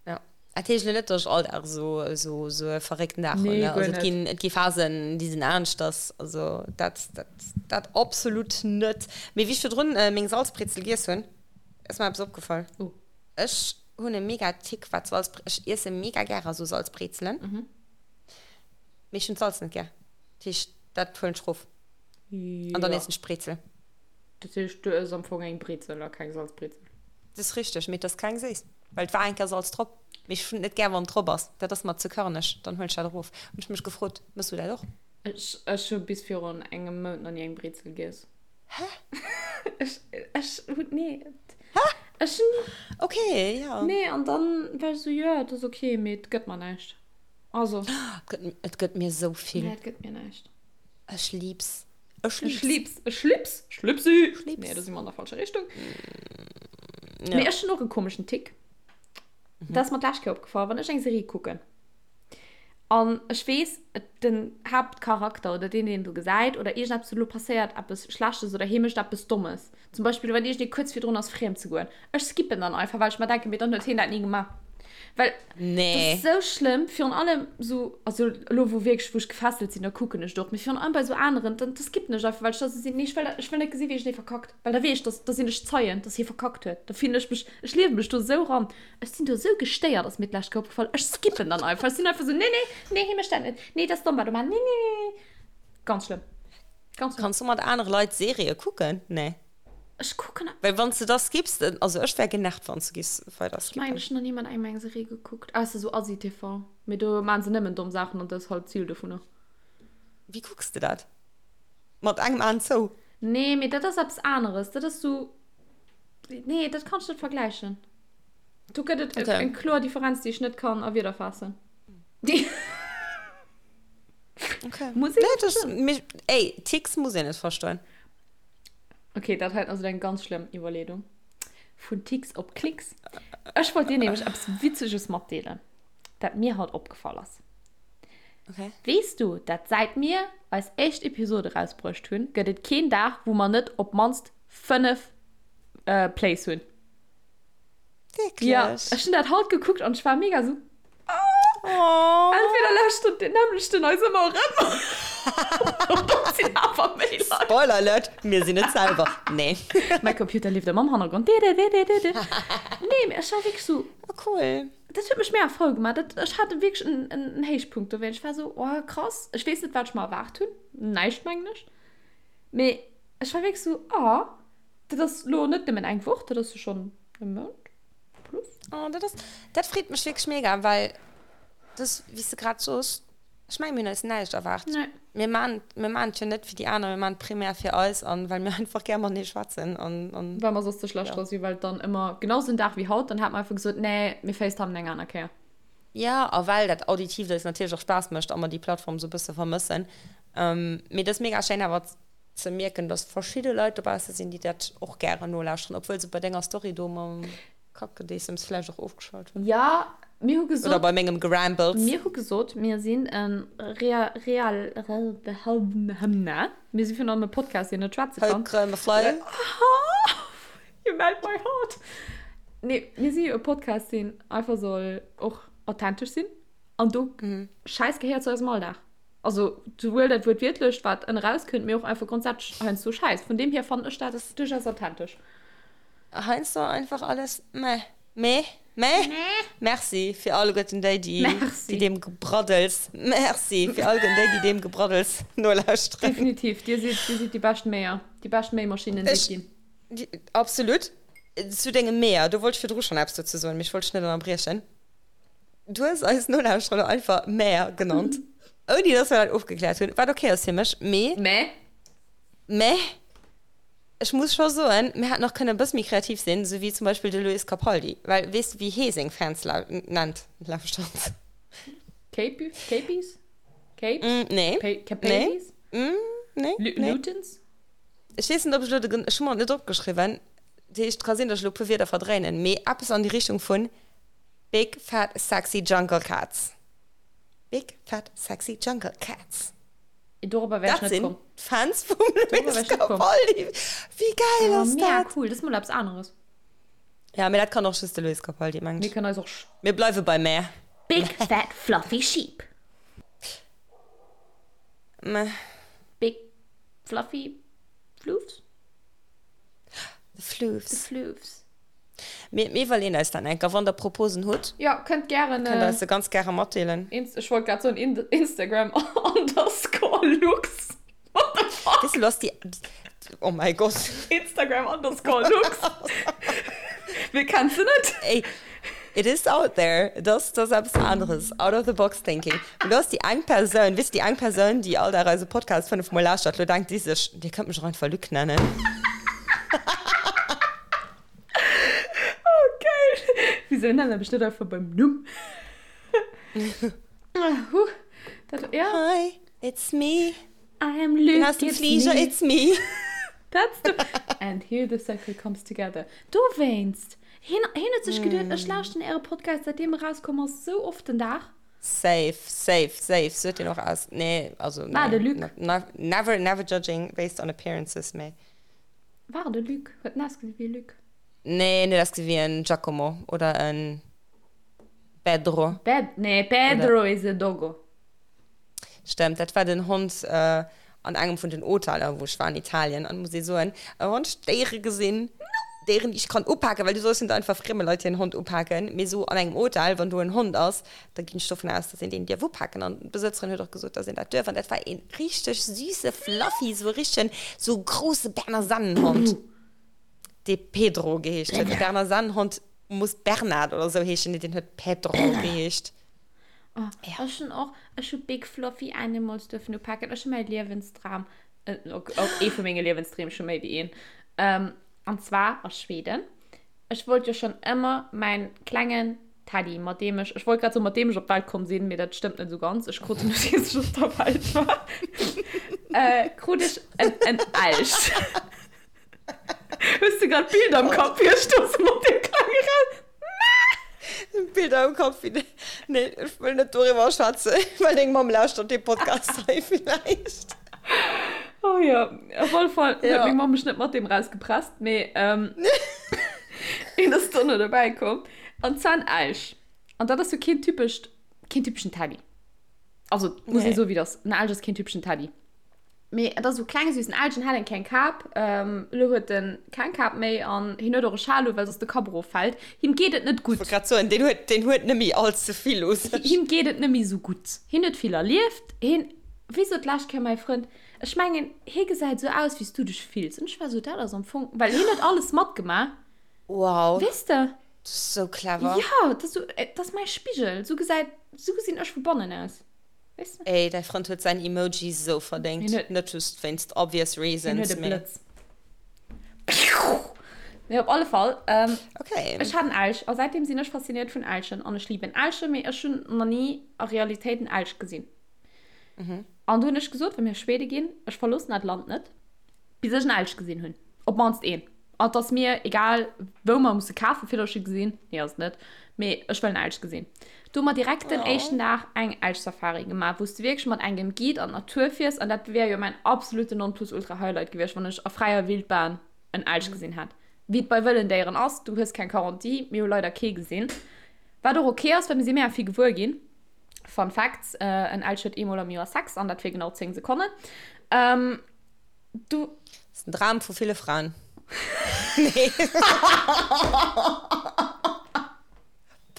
Speaker 2: Ja. Dat heescht elo net, dass ech all Dag esou, esou, esou e verréckten Dag hunn,
Speaker 1: Nee,
Speaker 2: ne?
Speaker 1: guer
Speaker 2: Also et
Speaker 1: net.
Speaker 2: ginn, et gi Phasen, déi sinn aneschters. Also dat, dat, dat absolut net. Mee wéi ech virdrun meng Salzbrezel giess hunn, ass mer eppes opgefall.
Speaker 1: Oh.
Speaker 2: Ech hunn e mega Tick wat Salz, ech iesse mega gäre sou Salzbrezelen, mee ech hunn d'Salz net gär. Dat heescht, dat huelen ech rof an dann
Speaker 1: Jo.
Speaker 2: iessen ech d'Brezel.
Speaker 1: Dat heescht, du ëss am Fong eng Brezel a keng Salzbrezel?
Speaker 2: Dat ass richteg, mee et ass keng séiss, well et war eng Kéier Salz drop. Mee ech hunn et net gär, wann et drop ass. Dat ass mer ze körneg, dann huelen ech dat erof. Hunn ech mech gefrot, Mëss du dat och?
Speaker 1: Ech, ech hu bis virun engem Mount nach ni eng Brezel giess.
Speaker 2: Hä?
Speaker 1: Ech, ech hunn, nee.
Speaker 2: Hä?
Speaker 1: Ech hunn.
Speaker 2: Okay, ja.
Speaker 1: Nee, an dann war ech esou, jo, et ass okay, mee et gëtt mer näischt. Also.
Speaker 2: Et gëtt, et gëtt mir esou vill.
Speaker 1: Nee, et gëtt mir näischt.
Speaker 2: Ech lieb's. Ech
Speaker 1: Ech
Speaker 2: lieb's.
Speaker 1: lieb's. Ech lieb's. Ech lieb's.
Speaker 2: Ech lieb's.
Speaker 1: Nee, da si mer an der falscher Richtung.
Speaker 2: Ja.
Speaker 1: Mee ech hunn och e komeschen Tick. Dat ass mer d'lescht Kéier opgefall, wann ech eng Serie kucken. An ech weess, den Haaptcharakter oder deen, deen do gesäit oder iergendeppes elo passéiert eppes Schlechtes oder hie mécht eppes Dommes, zum Beispill wann iergendee kuerz virdrun ass friem ze goen, ech skippen dann einfach, well ech mer denken, mee dann huet hien dat ni gemaach. Well dat ass esou schlëmm, virun allem esou, also elo wou wierklech, wou ech gefesselt sinn, da kucken ech et och, mee virun allem bei esou aneren, dann da skippen ech einfach, well ech da esou sinn, nee ech wëll dat, ech wëll net gesinn, wéi iergendee verkackt, well da weess ech, dass, da sinn ech Zeien, dass hie verkackt huet, da fillen ech mech, ech liewe mech do esou eran. Ech sinn do esou gestéiert, ass mir d'lescht Kéier opgefall. Ech skippen dann einfach. Ech sinn einfach esou, nee, nee, nee, hie mécht dat net. Nee, dat ass domm, wat e maacht. Nee, nee, nee, nee. Ganz schlëmm. Ganz schlëmm.
Speaker 2: Kanns du mat anere Leit Serië kucken? Nee.
Speaker 1: Ech kucken.
Speaker 2: Well wann s de da skipps, also ech wär genervt, wann s de giffs weider
Speaker 1: Ech mengen,
Speaker 2: skippen.
Speaker 1: ech hunn nach ni mat engem eng Serie gekuckt, ausser esou Asi-TV. Mee do maachen se nëmmen domm Saachen an dat ass halt d'Zil dovunner.
Speaker 2: Wéi kucks de dat? Mat engem Aen zou?
Speaker 1: Nee, mee dat ass eppes aneres. Dat ass esou, nee, dat kann ech net vergläichen. Do gëtt et okay. eng kloer Differenz, déi ech net kann a Wierder faassen.
Speaker 2: Okay.
Speaker 1: Muss een
Speaker 2: nee, das, mich, ey, Ticks muss een net verstoen.
Speaker 1: Okay, dat hei ass eng ganz schlëmm Iwwerleedung. Vun Ticks op Klicks. Ech wollt dir nämlech eppes Witzeges matdeelen, dat mir haut opgefall ass.
Speaker 2: Okay.
Speaker 1: Weess du, dat säit mir eis éischt Episode rausbruecht hunn, gëtt et keen Dag, wou mer net op d'mannst 5 äh, Plays hunn.
Speaker 2: Wierklech?
Speaker 1: Ja, ech hunn dat haut gekuckt an ech war mega sou,
Speaker 2: Oh.
Speaker 1: Entweder lauschtert deen nämmlechten eis ëmmer erëm oder et sinn awer méi Leit.
Speaker 2: Spoiler Alert, mir sinn et selwer. Nee.
Speaker 1: Mäi Computer leeft ëmmer am Hannergrond. Didididididi. Nee, mee ech war wierklech sou.
Speaker 2: Oh, cool.
Speaker 1: Dat huet mech mega frou gemaach. Dat, ech hat wierklech en, en, en Héichpunkt dowéinst. Ech war sou, oh krass. Ech weess net, wat ech mer erwaart hunn. Näischt, mengen ech. Mee. Ech war wierklech sou, ah, dat ass lo net nëmmen eng Woch, dat ass jo schonn e Mount plus.
Speaker 2: Oh, dat ass, dat freet mech wierklech mega, well dass, wéi s de grad soos, ech mengen, mir hunn eis näischt erwaart.
Speaker 1: Nee.
Speaker 2: Mir maan, mir maan et jo net fir déi aner, mir maan et primär fir eis an well mir einfach gär matenee schwätzen an, an.
Speaker 1: Well mer soss ze schlecht
Speaker 2: Ja.
Speaker 1: dra sinn, well et dann ëmmer genau sou en Dag wéi haut, dann hat mer einfach gesot, nee, mir facetimen eng aner Kéier.
Speaker 2: Ja, a well dat Auditiivt eis natierlech och Spaass mécht a mer déi Plattform sou e bësse vermëssen. Mee et ass mega schéin awer ze mierken, dass verschidde Leit dobausse sinn, déi dat och gären nolauschteren, obwuel se bei denger Story do mam Kackgedeessems vläicht och ofgeschalt hunn.
Speaker 1: Ja, mir hu gesot.
Speaker 2: Oder bei mengem Gerambles.
Speaker 1: Mir hu gesot, mir sinn e real, real, mir si virun allem e Podcast, deen net schwätze kann. You melt my heart. Nee, mir si jo e Podcast, deen einfach soll och authentesch sinn. An do, Schäiss gehéiert zu eisem Alldag. Also souwuel dat Wuertwiertlecht, wat ënne rauskënnt, mee och einfach grondsätzlech heiansdo Schäiss. Vun deem hier fannen ech dat duerchaus authentesch.
Speaker 2: Heiansdo einfach alles meh. Meh? Meh? Merci fir alleguerten déi, déi, déi deem Gebraddels, merci fir alleguerten déi, déi deem Gebraddels nolauschteren.
Speaker 1: Definitiv, dir sidd, dir sidd déi bescht Méier, déi bescht Méimaschinnen, déi et ginn.
Speaker 2: Absolut. Zu dengem Méier, do wollt ech virdru schonn eppes dozou soen, mee ech wollt dech net ënnerbriechen. Du hues eis Nolauschterer elo einfach Mäer genannt, ouni dass mer dat ofgekläert hunn, wat ok ass fir mech, mee.
Speaker 1: Mä?
Speaker 2: Mä ech muss scho soen, mir hätten och kënnen e bësse méi kreativ sinn, esou wéi zum Beispill de Luis Capaldi, well weess de wéi hee seng Fans nennt, lauschtert?
Speaker 1: Cape, Capies? Capes?
Speaker 2: Nee.
Speaker 1: Capaldies?
Speaker 2: Nee. Nee.
Speaker 1: Lutens?
Speaker 2: Ech weess net, ob ech elo de, ech hu mer et net opgeschriwwen, dat heescht, et ka sinn, dass ech elo e puer Wierder verdréinen, mee eppes an déi Richtung vun Big fat sexy jungle cats. Big fat sexy jungle cats.
Speaker 1: Dorobber wär ech
Speaker 2: Dat
Speaker 1: net komm.
Speaker 2: sinn d'Fans vum
Speaker 1: Dorobber wär
Speaker 2: Luis
Speaker 1: ech net komm.
Speaker 2: Capaldi. Wéi geil
Speaker 1: Oh,
Speaker 2: ass
Speaker 1: mega
Speaker 2: dat?
Speaker 1: cool. Dat ass mol eppes aneres.
Speaker 2: Ja, mee dat kann och just de Luis Capaldi, mengen
Speaker 1: Mir
Speaker 2: ech.
Speaker 1: kënnen eis och.
Speaker 2: Mir bleiwe bei meh.
Speaker 1: Big fat fluffy sheep.
Speaker 2: Meh.
Speaker 1: Big fluffy floofs?
Speaker 2: The floofs.
Speaker 1: The floofs.
Speaker 2: Mir iwwerleeën eis dat enker. Wann der Proposen hutt,
Speaker 1: Jo, kënnt gären.
Speaker 2: kënnt der eis se ganz gäre matdeelen.
Speaker 1: Ech wollt grad soen Instagram underscore lux. What the fuck?
Speaker 2: Weess de, lo ass déi, oh mäi Gott.
Speaker 1: Instagram underscore lux. Wie kennt se net?
Speaker 2: Ey, it is out there. Et ass, et ass eppes aneres. Out of the box thinking. Mee lo ass déi eng Persoun, weess de, déi eng Persoun, déi all Dag eise Podcast 5 mol lauschtert, lo denkt déi sech, Dir kënnt mech och einfach Luc nennen.
Speaker 1: Oh geil! Wieso nennen ech net einfach beim Numm? Huh, dat, ja.
Speaker 2: Hi, it's me.
Speaker 1: I am Luc,
Speaker 2: Bin aus dem
Speaker 1: it's
Speaker 2: Flieger,
Speaker 1: me.
Speaker 2: it's me.
Speaker 1: That's the... And here the circle comes together. Dowéinst! Hien, hien huet sech geduet, ech lauschten äre Podcast, säitdeem e rauskomm ass, sou oft den Dag.
Speaker 2: Safe, safe, safe. Sou huet deen och aus. Nee, also
Speaker 1: War
Speaker 2: nee.
Speaker 1: de Luc.
Speaker 2: Not, never, never judging based on appearances, mee.
Speaker 1: War et e Luc? Huet en ausgesinn wéi e Luc?
Speaker 2: Nee, en huet ausgesinn wéi en Giacomo oder en Pedro.
Speaker 1: Ped, nee, Pedro is a doggo.
Speaker 2: Stemmt, dat war den Hond an engem vun den Hoteller, wou ech war an Italien. An muss ee soen, wann ech Déiere gesinn, Déieren, déi ech kann upaken, well du solls net einfach frieme Leit hiren Hond upaken, mee esou an engem Hotel, wann do en Hond ass, Da ginn ech dovun aus, dass een deen dierf upaken. An d'Besëtzerin huet och gesot, dass een dat duerf. An dat war ee richteg süsse Fluffy, sou e richtegen, sou e grousse Berner Sennenhond, dee Pedro geheescht huet. De Berner Sennenhond muss Bernard oder sou heeschen, nee, deen huet Pedro geheescht.
Speaker 1: Oh, ech hunn och, ech hu Big Fluffy Animals duerfen upaken. Ech hu mäi Liewensdram, ok, ee vu menge Liewensdreem, ech hu méi wéi een, an zwar a Schweden. Ech wollt jo schonn ëmmer mäin klengen Teddy, mat deem ech, ech wollt grad soen, mat deem ech op d'Welt komm sinn, mee dat stëmmt net esou ganz, ech krut en nodeems ech op der Welt war, äh, krut ech en, en Elch. Hues du grad Bilder am Kapp, wéi ech do sou mat deem klenge Raus.
Speaker 2: Bilder am Kapp, wéi de, nee, ech wëll net doriwwer schwätzen, well deng Mamm lauschtert dee Podcast hei villäicht.
Speaker 1: Oh jo, op alle Fall huet
Speaker 2: Ja.
Speaker 1: meng Mamm mech net mat deem rausgepresst, mee, ähm, een ass dono dobäi komm. An zwar en Elch. An dat ass jo keen typescht, keen typeschen Teddy. Also, muss ee
Speaker 2: Nee.
Speaker 1: soen, wéi et ass. En Elch ass keen typeschen Teddy. Mee et ass esou kleng, süssen Elch, en hat eng kleng Kap. Ähm, elo huet en keng Kap méi an hien huet och e Schal u, well soss de Kapp eroffält. Him geet et net
Speaker 2: Ech wollt
Speaker 1: gutt.
Speaker 2: grad soen, deen huet, deen huet net méi all ze vill u sech.
Speaker 1: Him geet et net méi esou gutt. Hien huet vill erlieft. Hien, wéi sot d'lescht Kéier mäi Frënd? Ech mengen, hie gesäit esou aus, wéi s du dech fills. An ech war esou, dat ass am Fong, well hien huet alles matgemaach.
Speaker 2: Wow.
Speaker 1: Weess de?
Speaker 2: Dat ass esou clever.
Speaker 1: Jo, dat ass esou, dat ass mäi Spigel. Esou gesäit, esou gesinn ech vu bannen aus. Weess de?
Speaker 2: Ey, däi Frënd huet säin Emoji esou verdéngt.
Speaker 1: Hien huet.
Speaker 2: Net just wéinst obvious
Speaker 1: Hien huet
Speaker 2: reasons,
Speaker 1: e
Speaker 2: mee.
Speaker 1: Blëtz. Mee op alle Fall,
Speaker 2: Okay.
Speaker 1: ech hat en Elch a säitdeem sinn ech fasziniert vun Elchen an ech liben Elchen, mee ech hunn nach ni a Realitéit en Elch gesinn. An du hunn ech gesot, wa mir Schwede ginn, ech verloossen dat Land net, bis ech en Elch gesinn hunn. Op d'mannst een. An et ass mir egal, wou mer musse kafen, fir datt ech e gesinn. Nee, ass et net. Mee ech wëll en Elch gesinn. Du hu mer direkt den éischten Dag eng Elch-Safari gemaach, wou s de wierklech mat engem Guide an d'Natur fiers. An dat wär jo mäin absoluten Nonplusultra-Highlight gewiescht, wann ech a fräier Wildbahn en Elch gesinn hätt. Wéi et bei wëllen Déieren ass, du hues keng Garantie. Mir hu leider kee gesinn. Wat och ok ass, well mir si mega vill gewuer ginn. Fun Facts, En Elch huet eemol am Joer Sex, an dat fir genau 10 Sekonnen. Du.
Speaker 2: Das ist ein Dram vu ville Fraen. Nee.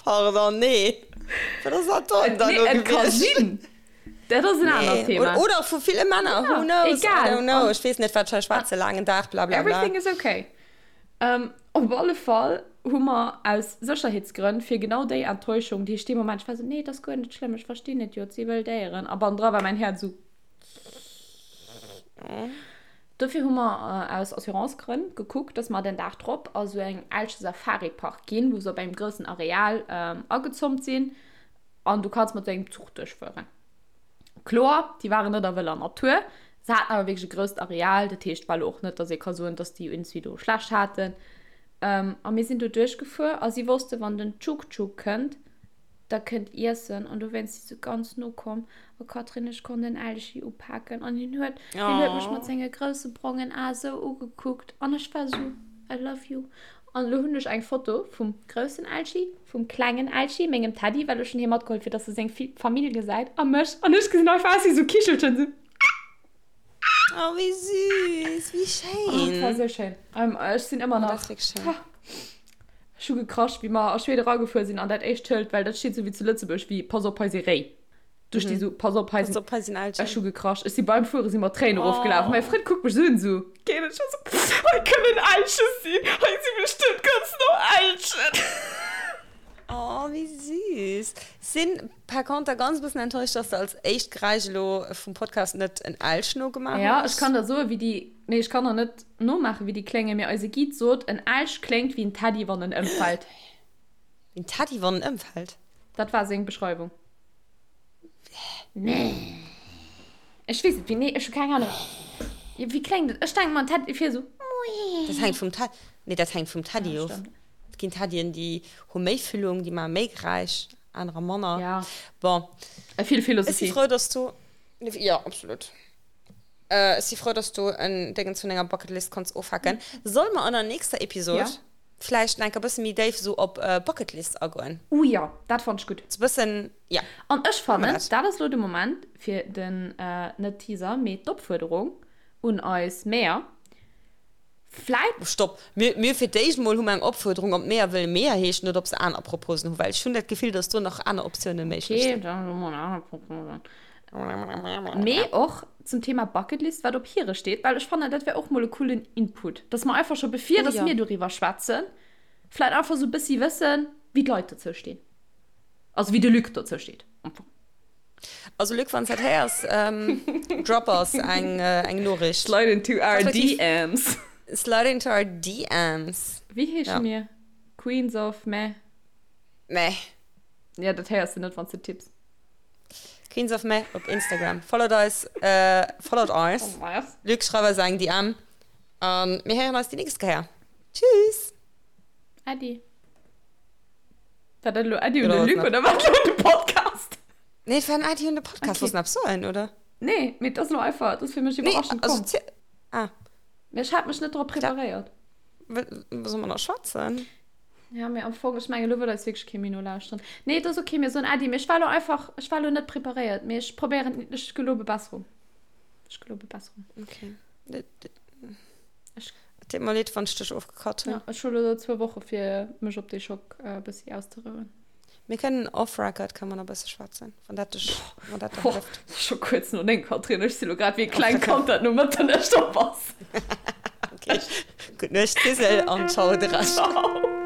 Speaker 2: Pardon, nee. Wat ass dat dann da
Speaker 1: Nee,
Speaker 2: lo
Speaker 1: et ka
Speaker 2: gewiescht?
Speaker 1: sinn. Dat ass en anert
Speaker 2: Nee.
Speaker 1: Thema.
Speaker 2: Oder, oder vu ville Männer,
Speaker 1: Ja,
Speaker 2: who knows? I
Speaker 1: egal.
Speaker 2: don't know.
Speaker 1: An
Speaker 2: Ech weess net, wat ech hei schwätze, laangen Dag, bla bla bla.
Speaker 1: Everything is okay. Ähm, op alle Fall hu mer aus Sécherheetsgrënn fir genau déi Enttäuschung, déi ech dee Moment, ech war sou, nee, et ass guer net schlëmm, ech verstinn et jo, et si wëll Déieren. A bannendra war mäin Häerz sou. Dofir hu mer aus Assurancegrënn gekuckt, dass mer den Dag drop a sou eng Elche Safari-Park ginn, wou se op engem groussen Areal agezoomt sinn an du kanns mat sou engem Zuch duerchfueren. Kloer, déi waren net a wëller Natur, se haten awer wierklech e grousst Areal, dat heescht war lo och net, dass ee ka soen, dass déi iergendwéi do schlecht haten. A mir sinn do duerchgefuer a si wosste wann den Tschuk-Tschuk kënnt, da kënnt iessen an dowéinst si se ganz no komm a Catherine ech konnt en Elchi upaken an hien huet hien huet mech mat senge grousse brongen Ae sou ugekuckt an ech war sou I love you an elo hunn ech eng Foto vum groussen Elchi, vum klengen Elchi, mengem Teddy, well ech hunn hie matgeholl fir dass e seng Famill gesäit a mech an ech gesinn einfach aus wéi sou Kichelchen sou.
Speaker 2: Oh wéi süß, wéi
Speaker 1: Oh, et war
Speaker 2: schéin.
Speaker 1: sou schéin. Ech sinn ëmmer
Speaker 2: Oh, dat
Speaker 1: nach
Speaker 2: ass wierklech schéin.
Speaker 1: Ech hu gekrasch, wéi mer a Schweden eragefuer sinn an dat éischt Schëld, well dat steet sou wéi zu Lëtzebuerg, wéi Pass op, hei si Réi. Do sti sou, Pass op, hei
Speaker 2: Pass
Speaker 1: sinn.
Speaker 2: op, hei sinn
Speaker 1: Ech
Speaker 2: Elchen.
Speaker 1: hu gekrasch. Ech si beim Fuere si mer d'Tréinen erofgelaf. Mäi
Speaker 2: Oh.
Speaker 1: Frënd kuckt mech sou un, sou, Geet et scho? Sou, Hei kënnen Elche sinn, hei si bestëmmt ganz no Elchen.
Speaker 2: Oh, wéi süß. Sinn par conter ganz bëssen enttäuscht, dass de als éischt Geräisch elo vum Podcast net en Elch nogemaach
Speaker 1: Ja, ech
Speaker 2: hues.
Speaker 1: kann der soen, wéi déi. Nee, ech kann der net nomaachen, wéi déi kléngen, mee eise Guide sot, en Elch kléngt wéi en Teddy, wann en ëmfält.
Speaker 2: Wéi en Teddy, wann en ëmfält?
Speaker 1: Dat war seng Beschreiwung. Nee. Ech weess et, wéi, nee, ech hu keng Ahnung. Wéi kléngt et? Ech denken mer, en Teddy wier esou.
Speaker 2: Dat hänkt vum Teddy, nee, dat hänkt vum Teddy
Speaker 1: Ja,
Speaker 2: of.
Speaker 1: stimmt.
Speaker 2: Et ginn Teddyen, déi hu méi Füllung, déi maache méi Geräisch, anerer manner.
Speaker 1: Ja.
Speaker 2: Bon.
Speaker 1: Vill
Speaker 2: Ech si
Speaker 1: Philosophie.
Speaker 2: frou, dass du, jo, absolut. Ech si frou, dass du en Déngens vun denger Bucketlist konns ofhaken. Solle mer an der nächster Episod
Speaker 1: Ja.
Speaker 2: vläicht nach enker bësse méi déif esou op Bucketlist agoen?
Speaker 1: Uh jo, dat fannt ech gutt.
Speaker 2: Sou bëssen, ja.
Speaker 1: An ech
Speaker 2: Maache mer
Speaker 1: fannen,
Speaker 2: dat.
Speaker 1: dat ass elo de Moment fir den, net Teaser, mee d'Opfuerderung un eis Mäer, Vläit.
Speaker 2: Stopp! Mir, mir fir d'éischt mol hu mer eng Opfuerderung, ob d'Meeër wëlle Meeër heeschen oder ob se aner Proposen hu, well ech hunn dat Gefill, dass do nach aner Optiounen méiglech
Speaker 1: Okay,
Speaker 2: sinn.
Speaker 1: dann hu mer aner Proposen. Mee och zum Thema Bucketlist, wat op hire steet, well ech fannen, dat wär och mol e coolen Input, dass mer einfach scho bevir
Speaker 2: Oh
Speaker 1: dass
Speaker 2: jo.
Speaker 1: mir doriwwer schwätzen, vläit einfach sou e bëssi wëssen, wéi d'Leit dozou stinn. Also wéi de Luc dozou steet am Fong.
Speaker 2: Also Luc, wann s dat héiers, drop eis eng eng Noriicht.
Speaker 1: Slide into our
Speaker 2: Respektiv
Speaker 1: DMs.
Speaker 2: Slide into our DMs.
Speaker 1: Wéi heesche
Speaker 2: Ja.
Speaker 1: mir? Queens of Meh?
Speaker 2: Meh.
Speaker 1: Ja, dat héiers de net, wann s de tipps.
Speaker 2: Queens of Meh op Instagram. Followt eis, followt eis. Luc, schreif eis eng DM. A mir héieren eis déi nächst Kéier. Tschüss!
Speaker 1: Äddi. War dat elo Äddi un
Speaker 2: Oder
Speaker 1: de
Speaker 2: was
Speaker 1: Luc
Speaker 2: nach?
Speaker 1: oder war dat elo un de Podcast?
Speaker 2: Nee, et war en Äddi un de Podcast.
Speaker 1: Okay.
Speaker 2: Wollts de nach eppes soen, oder?
Speaker 1: Nee, mee et ass elo einfach, et ass fir mech
Speaker 2: Nee,
Speaker 1: iwwerraschend
Speaker 2: also
Speaker 1: komm.
Speaker 2: zi- Ah,
Speaker 1: Mee ech hat mech net drop preparéiert.
Speaker 2: wa soll mer nach schwätzen?
Speaker 1: Ja, mee am Fong, ech mengen, elo wëll eis wierklech kee méi nolauschteren. Nee, et ass okay, mir soen Äddi, mee ech war elo einfach, ech war elo net preparéiert, mee ech probéieren, ech gelobe Besserung. Ech gelobe Besserung.
Speaker 2: Okay.
Speaker 1: Ech.
Speaker 2: Et deet mer leed, wann ech dech ofgecut hunn.
Speaker 1: Ja, ech hu lo zwou Woche fir mech op dee Schock e bëssi auszerouen.
Speaker 2: Mir kënnen off record kënne mer nach e bësse schwätzen, wann dat dech, wann dat der hëlleft.
Speaker 1: Boah, scho kuerz no 9, Catherine. Ech si lo grad wéi e klengt Kand, dat no Mëtternuecht op ass.
Speaker 2: Okay, gutt Nuecht Lisel an ciao de Rescht.
Speaker 1: Ciao.